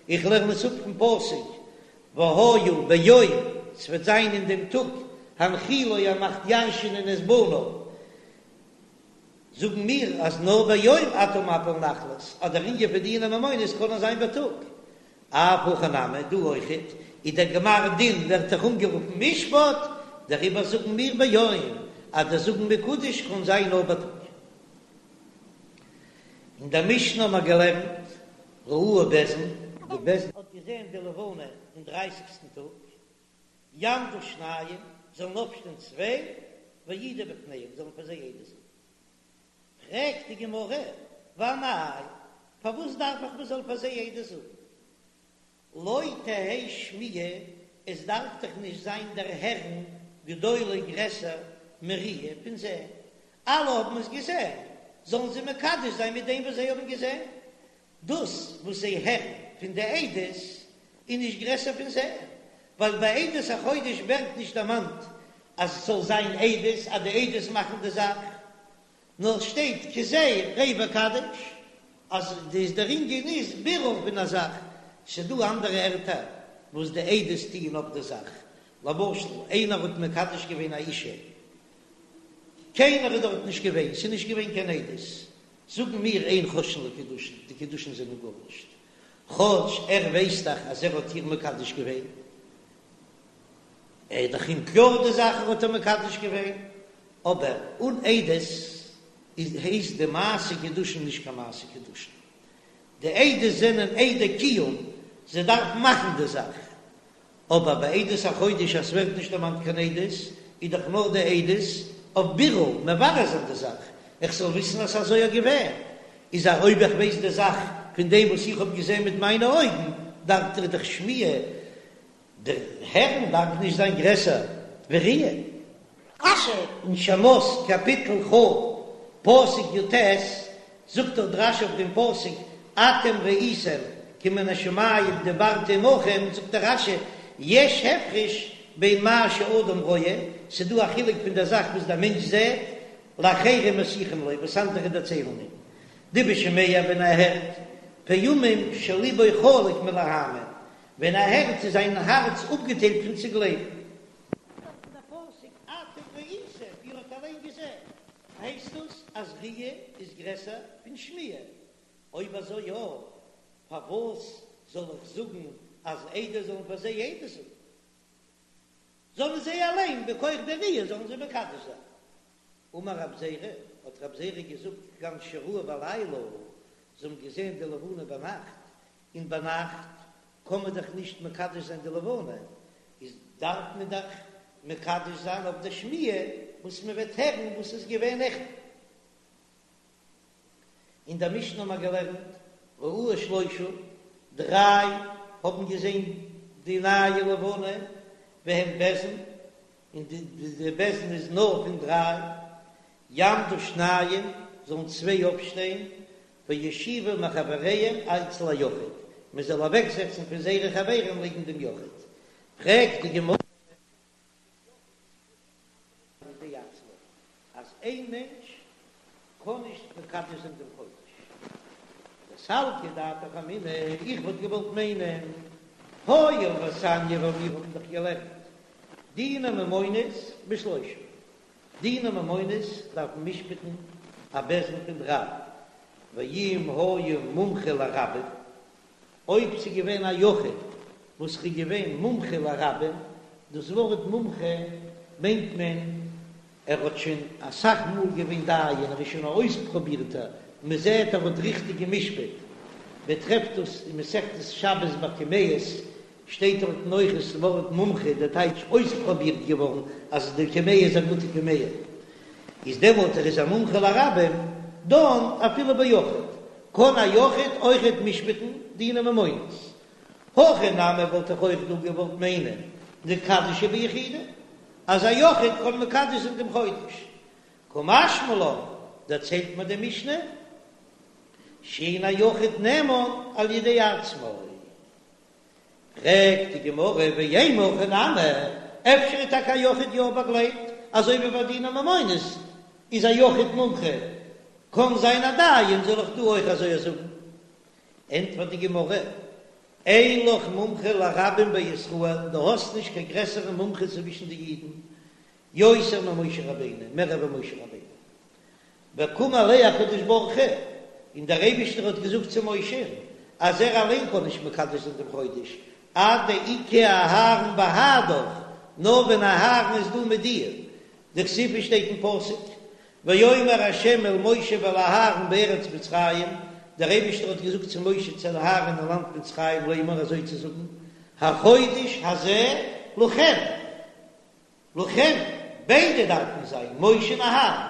Speaker 1: איך לערן עס אפ פון פסוק והיה ביום, ס'וועט זיין אין דעם טאג, הנחילו ער מאכט ירש'ענען את בניו, זאגן מיר אז נאר ביום אתה מפיל נחלות, אז דער ענין פון דיני ממונות קען נאר זיין בייטאג. אף הכא נמי, דא אויכעט איז דער גמר דין ווערט דאך אנגערופן משפט, דעריבער זאגן מיר ביום, אז דער זאגן מקודש קען זיין נאר בייטאג. אין דער משנה האבן מיר געלערנט ראוהו בית דין, די בית דין האט געזען די לבנה אין דרייסיגסטן טאג, יעמדו שניים, זאלן אויפשטיין צוויי, ויעידו בפניהם, זאלן פאר זיי עדות זאגן. פרעגט די גמרא, ואמאי, פארוואס דארף איך מען זאל פאר זיי עדות זאגן? לא תהא שמיעה, עס דארף דאך נישט זיין דער הערן גדולה גרעסער מראיה פון זען, אלע האבן עס געזען, זאלן זיי מקדש זיין מיט דעם וואס זיי האבן געזען, דאס וואס זיי הערן פון די עדות איז נישט גרעסער פון זען, ווייל ביי עדות החודש ווערט נישט דערמאנט אז עס זאל זיין עדות אז די עדות מאכן די זאך, נאר עס שטייט כזה ראה וקדש אז דאס דער ענין איז בירור פון א זאך, ס'איז דא אנדערע ערטער וואס די עדות טוען אויף די זאך, למשל איינער האט מקדש געווען א אישה, קיינער איז דארט נישט געווען, ס'איז נישט געווען קיין עדות, זאגן מיר אין חוששין לקידושין, די קידושין זענען גארנישט, כאטש ער ווייסט דאך אז ער האט איר מקדש געווען, ער איז דאך אים קלאר די זאך ער האט איר מקדש געווען, אבער אן עדות איז הייסט די מעשה קידושין נישט קיין מעשה קידושין, די עדות זענען עדי קיום, זיי דארפן מאכן די זאך, אבער ביי עדות החודש אז ס'ווערט נישט דערמאנט קיין עדות, איז דאך נאר די עדות אויף בירור, מברר זיין די זאך, איך זאל וויסן אז ס'אזוי איז געווען, איז א אויב איך ווייס די זאך פון דעם וואס איך האב געזען מיט מיינע אויגן, דארף דאך די שמיעה דער הערן דארף נישט זיין גרעסער ווי ראיה. רש"י אין שמות קאפיטל כ פסוק י"ט זאגט דאך דער רש"י אויף דעם פסוק אתם ראיתם כי מן השמים דיברתי עמכם, זאגט דער רש"י יש הפרש בין מה שאדם רואה, ס'דא א חילוק פון דער זאך וואס דער מענטש זעט, לאחרים מסיחים לו, וואס אנדערע דערציילן אים. דבשומע ווען ער הערט, פעמים שליבו חלוק מלהאמין, ווען ער הערט איז זיין הארץ אפגעטיילט פון צו גלייבן. דארט אין דער פסוק אתם ראיתם, איר האט אליין געזען, הייסט דאס אז ראיה איז גרעסער פון שמיעה? אויב אזוי יא, פארוואס זאל איך זאגן אז עדות זאלן פאר זיי עדות זאגן? זאלן זיי אליין בכח די ראיה זאלן זיי מקדש זיין. אמר רב זירא, האט רב זירא געזאגט, כגון שראוה בלילה, זיי האבן געזען די לבנה ביינאכט, און ביינאכט קען מען דאך נישט מקדש זיין די לבנה, איז דארף מען דאך מקדש זיין אויף די שמיעה וואס מען וועט הערן וואס איז געווען נעכטן. אין דער משנה האבן מיר געלערנט ראוה שלושה, דריי האבן געזען די נייע לבנה, והם בית דין, און די בית דין איז נאר פון דריי, יעמדו שניים, זאלן צוויי אויפשטיין, ויושיבו מחבריהם אצל היחיד, מען זאל אוועקזעצן פון זייערע חברים לעבן דעם יחיד. פרעגט די גמרא. על ידי עצמו, אז איין מענטש קען נישט מקדש זיין דעם חודש. דסלקא דעתך אמינא, איך וואלט געוואלט מיינען, הואיל ותניא ווייל מיר האבן דאך געלערנט דיני ממונות בשלושה, דיני ממונות דארף מען משפט'ן א בית דין פון דריי, ואם היה מומחה לרבים, אויב ס'איז געווען א יחיד וואס איז געווען מומחה לרבים, דאס ווארט מומחה מיינט מען ער האט שוין אסאך מאל געווען דיין, ער איז שוין א אויספרובירטער, מען זעט ער האט ריכטיג גע'משפט, מען טרעפט דאס אין מסכת שבת ביי קמיעות, שטייט דארטן אויך דאס ווארט מומחה, דער טייטש אויספרובירט געווארן אז די קמיע איז א גוטע קמיע, איז דעמאלט ער איז א מומחה לרבים, דן אפילו ביחיד, קען א יחיד אויכעט משפט'ן דיני ממונות. הכא נמי וואלט איך אויך דא געוואלט מיינען ניקדשיה ביחידי, אז א יחיד קען מקדש זיין דעם חודש. קא משמע לן, דערציילט מיר די משנה, שאין היחיד נאמן על ידי עצמו. פרעגט די גמרא ואימא הכי נמי, אפשר איז טאקע א יחיד יא באגלייבט, אזוי ווי ביי דיני ממונות איז א יחיד מומחה, קען זיין א דיין, זאל איך דא אויך אזוי זאגן? ענטפערט די גמרא, אין לך מומחה לרבים בישראל, דו האסט נישט קיין גרעסערע מומחה צווישן די אידן, יותר ממשה רבינו, מער ווי משה רבינו. וקאמר ליה הקדוש ברוך הוא, און דער אייבישטער האט געזאגט צו משה אז ער אליין קען נישט מקדש זיין דעם חודש, עד דאיכא אהרן בהדך, נאר ווען אהרן איז דא מיט דיר, דכתיב שטייט אין פסוק, ויאמר ה' אל משה ואל אהרן בארץ מצרים, דער אייבישטער האט געזאגט צו משה צו אהרן אין לאנד מצרים לאמור אזוי צו זאגן, החודש הזה לכם. לכם, ביידע דארפן זיין משה און אהרן.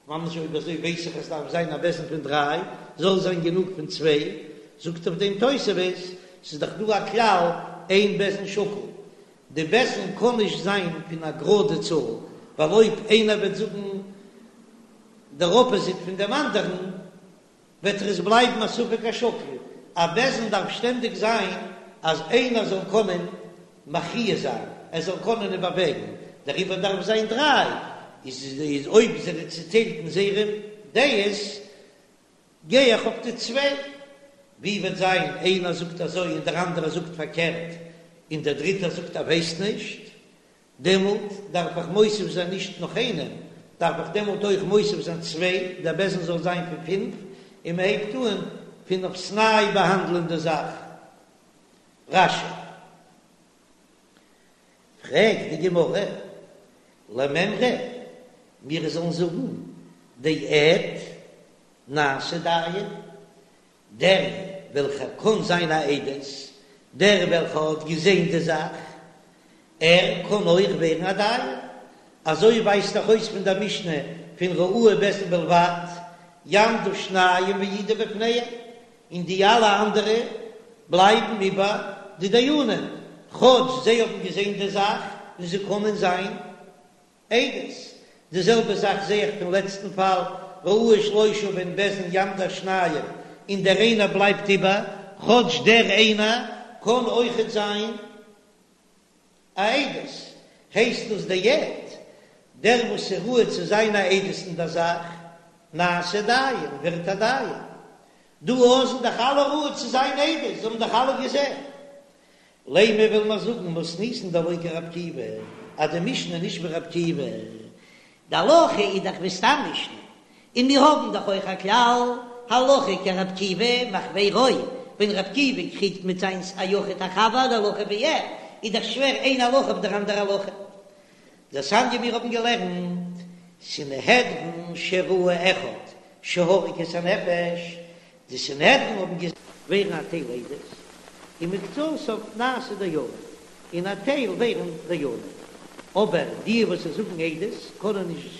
Speaker 1: ממש אויב אזוי ווייס איך אז ס'דארף זיין א בית דין פון דריי, זאל זיין גענוג פון צוויי, זאגט אויף דעם תוספות, ס'איז דאך דא א כלל אין בית דין שקול, די בית דין קען נישט זיין פון א גראדע צאל, ווייל אויב איינער וועט זאגן דער אפאזיט פון דעם אנדערן, וועט עס בלייבן א ספק השקול, א בית דין דארף שטענדיג זיין אז איינער זאל קענען מכריע זיין, ער זאל קענען איבערוועגן, דעריבער דארף זיין דריי, איז אויב זיי זענען צוטיילט אין זייערע דעות, גיי איך אויף די צוויי, ווי וועט זיין איינער זאגט אזוי און דער אנדערער זאגט פארקערט, און דער דריטער זאגט ער ווייסט נישט, דעמאלט דארף איך מוסיף זיין נישט נאך איינעם, דארף איך דעמאלט אויך מוסיף זיין צוויי, דער בית דין זאל זיין פון פינף, און מען הייבט אן פון אויפסניי באהאנדלען די זאך. רש"י. פרעגט די גמרא, למימרא, מיר זאלן זאגן דעד נעשה דיין, דער וועלכער קען זיין א עדות, דער וועלכער האט געזען די זאך, ער קען אויך ווערן א דיין. אזוי ווייזט דאך אויס פון דער משנה פון ראוה בית דין בלבד, יעמדו שניים ויעידו בפניהם, און די אלע אנדערע בלייבן איבער די דיינים, כאטש זיי האבן געזען די זאך און זיי קענען זיין עדות. די זעלבע זאך זעה איך פון לעצטן פאל, ראוה שלושה והן בית דין יעמדו שניים, און דער איינער בלייבט איבער, כאטש דער איינער קען אויכעט זיין א עדות, הייסט דאס דער עד, דער וואס איז ראוי צו זיין א עדות אין דער זאך. נעשה דיין, ווערט א דיין. דא אויך זענען דאך אלע ראוי צו זיין עדות, זיי האבן דאך אלע געזען. לימא וויל מען זאגן מתניתין דלא כרבי עקיבא, אז די משנה איז נישט ווי רבי עקיבא,
Speaker 2: די הלכה איז דאך ווי סתם משנה, און מיר האבן דאך אויך א כלל, הלכה כרבי עקיבא מחבירו, ווען רבי עקיבא קריגט מיט זיינס א יחיד א חבר די הלכה ווי ער, איז דאך שווער איין הלכה אויף דער אנדער הלכה.
Speaker 1: דתניא מיר האבן געלערנט סנהדרין שראו אחד שהרג את הנפש, די סנהדרין האבן געזען. ווערן א טייל עדות, ומקצתם נעשו דיינים, און א טייל ווערן דיינים, אבער די וואס זיי זאגן עדות קענען נישט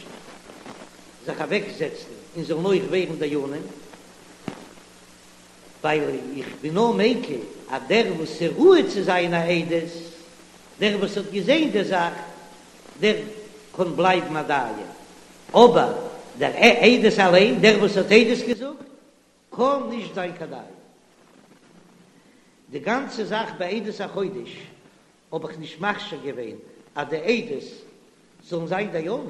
Speaker 1: זיך אוועק זעצן און זאלן אויך ווערן דיינים, ווייל איך בין נאר מיקל אז דער וואס איז ראוי צו זיין א עדות, דער וואס האט געזען די זאך, דער קען בלייבן א דיין, אבער דער עדות אליין, דער וואס האט עדות געזאגט, קען נישט זיין קיין דיין. די גאנצע זאך ביי עדות החודש האב איך נישט מכשיר געווען אז די עדות זאלן זיין דיינים,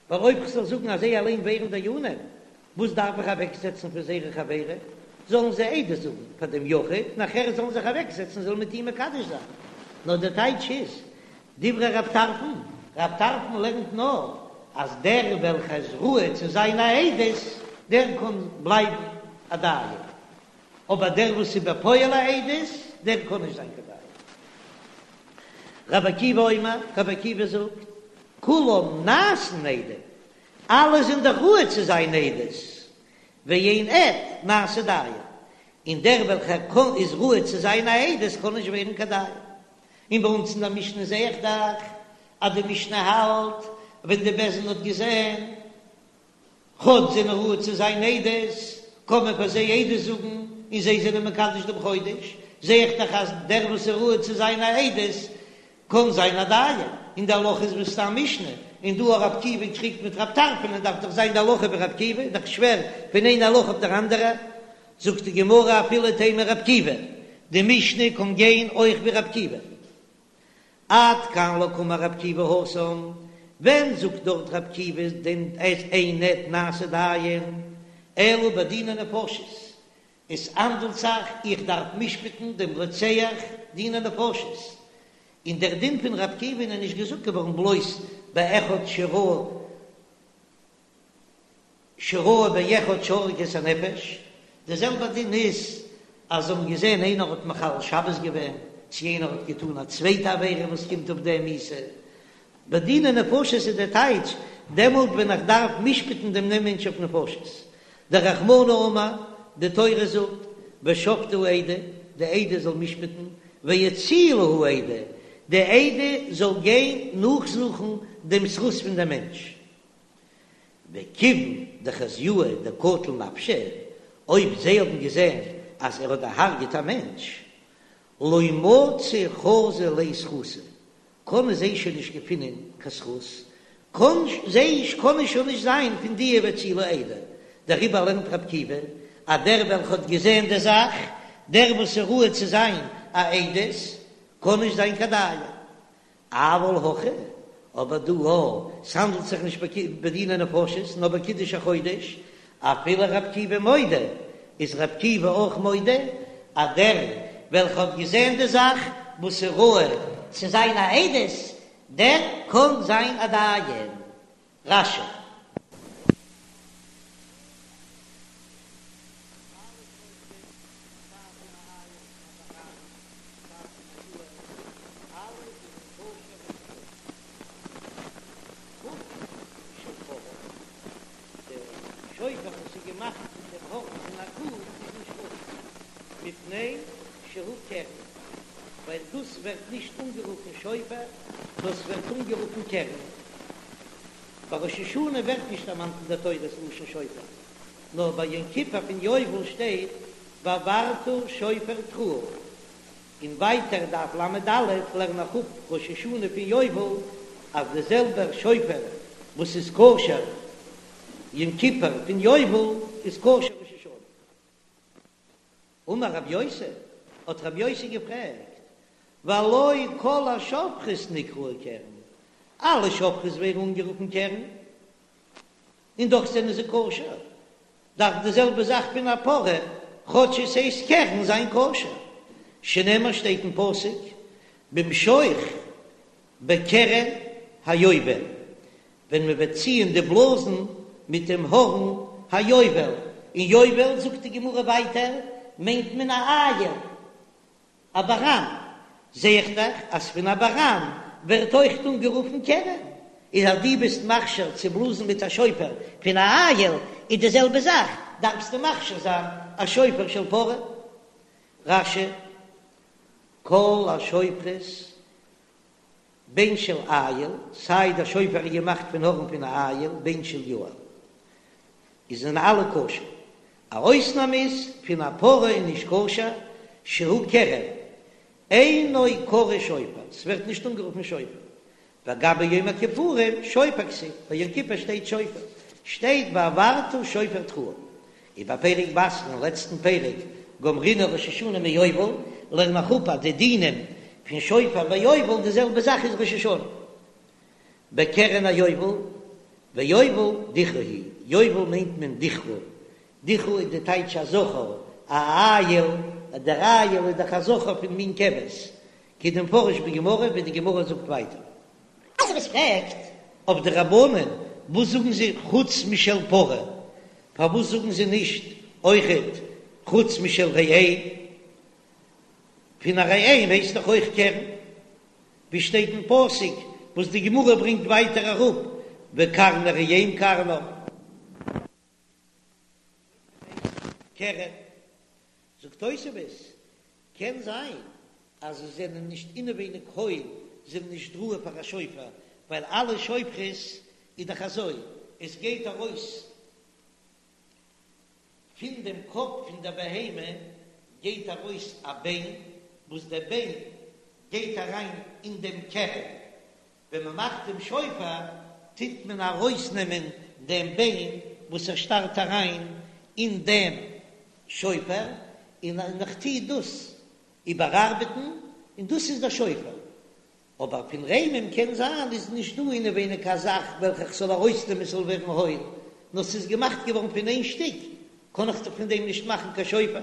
Speaker 1: ווייל אויב כ'זאל זאגן אז זיי אליין ווערן דיינים, וואס דארף איך אוועקזעצן פון זייערע חברים? זאלן זיי עדות זאגן פאר דעם יחיד, נאכער זאלן זיך אוועקזעצן זאלן מיט אים מקדש זיין. נאר דער טייטש איז, דברי רב טרפון, רב טרפון לערנט נאר אז דער וועלכער איז ראוי צו זיין א עדות, דער קען בלייבן א דיין, אבער דער וואס איז בפועל א עדות, דער קען נישט זיין קיין דיין. רבי עקיבא אומר, רבי עקיבא זאגט, כולם נעשין עדים, אלע זענען דאך ראוי צו זיין עדות, ואין עד נעשה דיין, און דער וועלכער קען איז ראוי צו זיין א עדות קען נישט ווערן קיין דיין. און ביי אונז אין דער משנה זע איך דאך אז די משנה האלט ווען די בית דין האט געזען כאטש זענען ראוי צו זיין עדות, קען מען פאר זיי עדות זאגן און זיי זענען מקדש דעם חודש, זע איך דאך אז דער וואס איז ראוי צו זיין א עדות קען זיין א דיין, און די הלכה איז ווי סתם משנה, און דא רבי עקיבא קריגט מיט רב טרפון און דארף דאך זיין די הלכה ווי רבי עקיבא, איז דאך שווער פון איין הלכה אויף דער אנדערע, זאגט די גמרא אפילו תימא רבי עקיבא, די משנה קען גיין אויך ווי רבי עקיבא. עד כאן לא קאמר רבי עקיבא התם, ווען זאגט דארט רבי עקיבא דעם אין עד נעשה דיין, אלא בדיני נפשות, עס האנדלט זיך איך דארף משפט'ן דעם רוצח דיני נפשות, און דער דין פון רבי עקיבא איז נישט געזאגט געווארן בלויז באחד שראה שראה באחד שהרג את הנפש, די זעלבע דין איז אז זיי האבן געזען איינער האט מחלל שבת געווען, צו איינער האט געטאן א צווייטע עבירה וואס קומט אויף דעם מיתה. בדיני נפשות איז דער טייטש, דעמאלט ווען איך דארף משפט'ן דעם מענטש אויף נפשות. דרחמנא אמר, די תורה זאגט, ושפטו העדה, די עדה זאל משפט'ן, והצילו העדה, די עדה זאל גיין נאכזוכן דעם זכות פון דעם מענטש. וכיוון דחזיוה דקטל נפשא, אויב זיי האבן געזען אז ער האט דערהארגעט א מענטש, לא מצו חזו ליה זכותא, קענען זיי שוין נישט געפינען קיין זכות, קען זיי קענען שוין נישט זיין פון די והצילו העדה, דעריבער לערנט רבי עקיבא אז דער וועלכע האט געזען די זאך, דער וואס איז ראוי צו זיין א עדות, קען נישט זיין קיין דיין. אבל הכא, אבער דא א, ס'האנדלט זיך נישט בדיני נפשות, נאר בקידוש החודש, אפילו רבי עקיבא מודה, איז רבי עקיבא אויך מודה אז דער וועלכע האט געזען די זאך וואס איז ראוי
Speaker 2: צו זיין א עדות, דער קען זיין א דיין. רש"י.
Speaker 1: שופר וואס איז געמאכט פון דעם הארן פון א קו איז נישט כשר, מפני שהוא קרן, ווייל דאס ווערט נישט אנגערופן שופר, דאס ווערט אנגערופן קרן. ביי ראש השנה ווערט נישט דערמאנט אין דער תורה ס'לשון שופר, נאר ביי יום כיפור פון יובל שטייט והעברת שופר תרועה, און ווייטער דף ל"א לערן איך אפ ראש השנה פון יובל אז די זעלבער שופר וואס איז כשר יום כיפור פון יובל איז כשר ראש השנה. אמר רב יוסי, האט רב יוסי געפרעגט, והלא כל השופרות נקראו קרן, אלע שופרות ווערן אנגערופן קרן? און דאך זענען זיי כשר, דארף די זעלבע זאך פון א פרה, כאטש עס הייסט קרן, זיין כשר. שנאמר שטייט אין פסוק במשוך בקרן היובל, ווען מען וועט ציען די בלאזן מיט דעם הארן היובל, און יובל זאגט די גמרא ווייטער מיינט מען א איל, א באראן, זע איך דאך אז פון א באראן ווערט אויכט אנגערופן קרן, איז אז דו ביסט מכשיר צו בלאזן מיט א שופר פון א איל, איז די זעלבע זאך דארפסטו מכשיר זיין א שופר של פרה. רש"י, כל השופרות בין של איל, סיי דער שופר איז געמאכט פון הארן פון א איל, בין של יעל, איז זענען אלע כשר. א אויסנאם איז פון א פרה איז נישט כשר, שהוא קרן, אינו קרוי שופר, ס'ווערט נישט אנגערופן שופר. וגבי יום הכיפורים שופר כתיב, ביי יום כיפור שטייט שופר, שטייט והעברת שופר תרועה. ובפרק בתרא אין לעצטן פרק גמרינן ראש השנה מיובל, לערן איך אפ אז די דינים פון שופר ביי יובל די זעלבע זאך איז ראש השנה בקרן היובל, ויובל דכרא הוא, יובל מיינט מען דכרא, דכרא איז די טייטש א זכר, א איל, דער איל איז דאך א זכר פון מין כבש, כדמפרש בגמרא ווי די גמרא זאגט ווייטער. תוספות פרעגט אויף די רבנן וואס זאגן זיי חוץ משל פרה, פארוואס זאגן זיי נישט אויכעט חוץ משל ראם? פון א ראם הייסט דאך אויך קרן, ווי שטייט אין פסוק וואס די גמרא ברענגט ווייטער אראפ וקרני ראם קרנה. קרן, זאגט תוספות, קען זיין אז זיי זענען נישט אינעווייניג הויל, זיי זענען נישט ראוי פאר א שופר, ווייל אלע שופרות איז דאך אזוי, עס גייט ארויס פון דעם קאפ פון דער בהמה גייט ארויס א ביין, וואס דער ביין גייט אריין אין דעם קרן, ווען מען מאכט דעם שופר טוט מען ארויסנעמען דעם ביין וואס ער שטארט אריין אין דעם שופר, און איך טו דאס איבערארבעטן, און דאס איז דער שופר. אבער פון ראמים קען זיין איז נישט דא אינעווייניג א זאך וועלכע איך זאל ארויסנעמען ס'זאל ווערן הויל, נאר ס'איז געמאכט געווארן פון איין שטיק, קען איך דאך פון דעם נישט מאכן קיין שופר.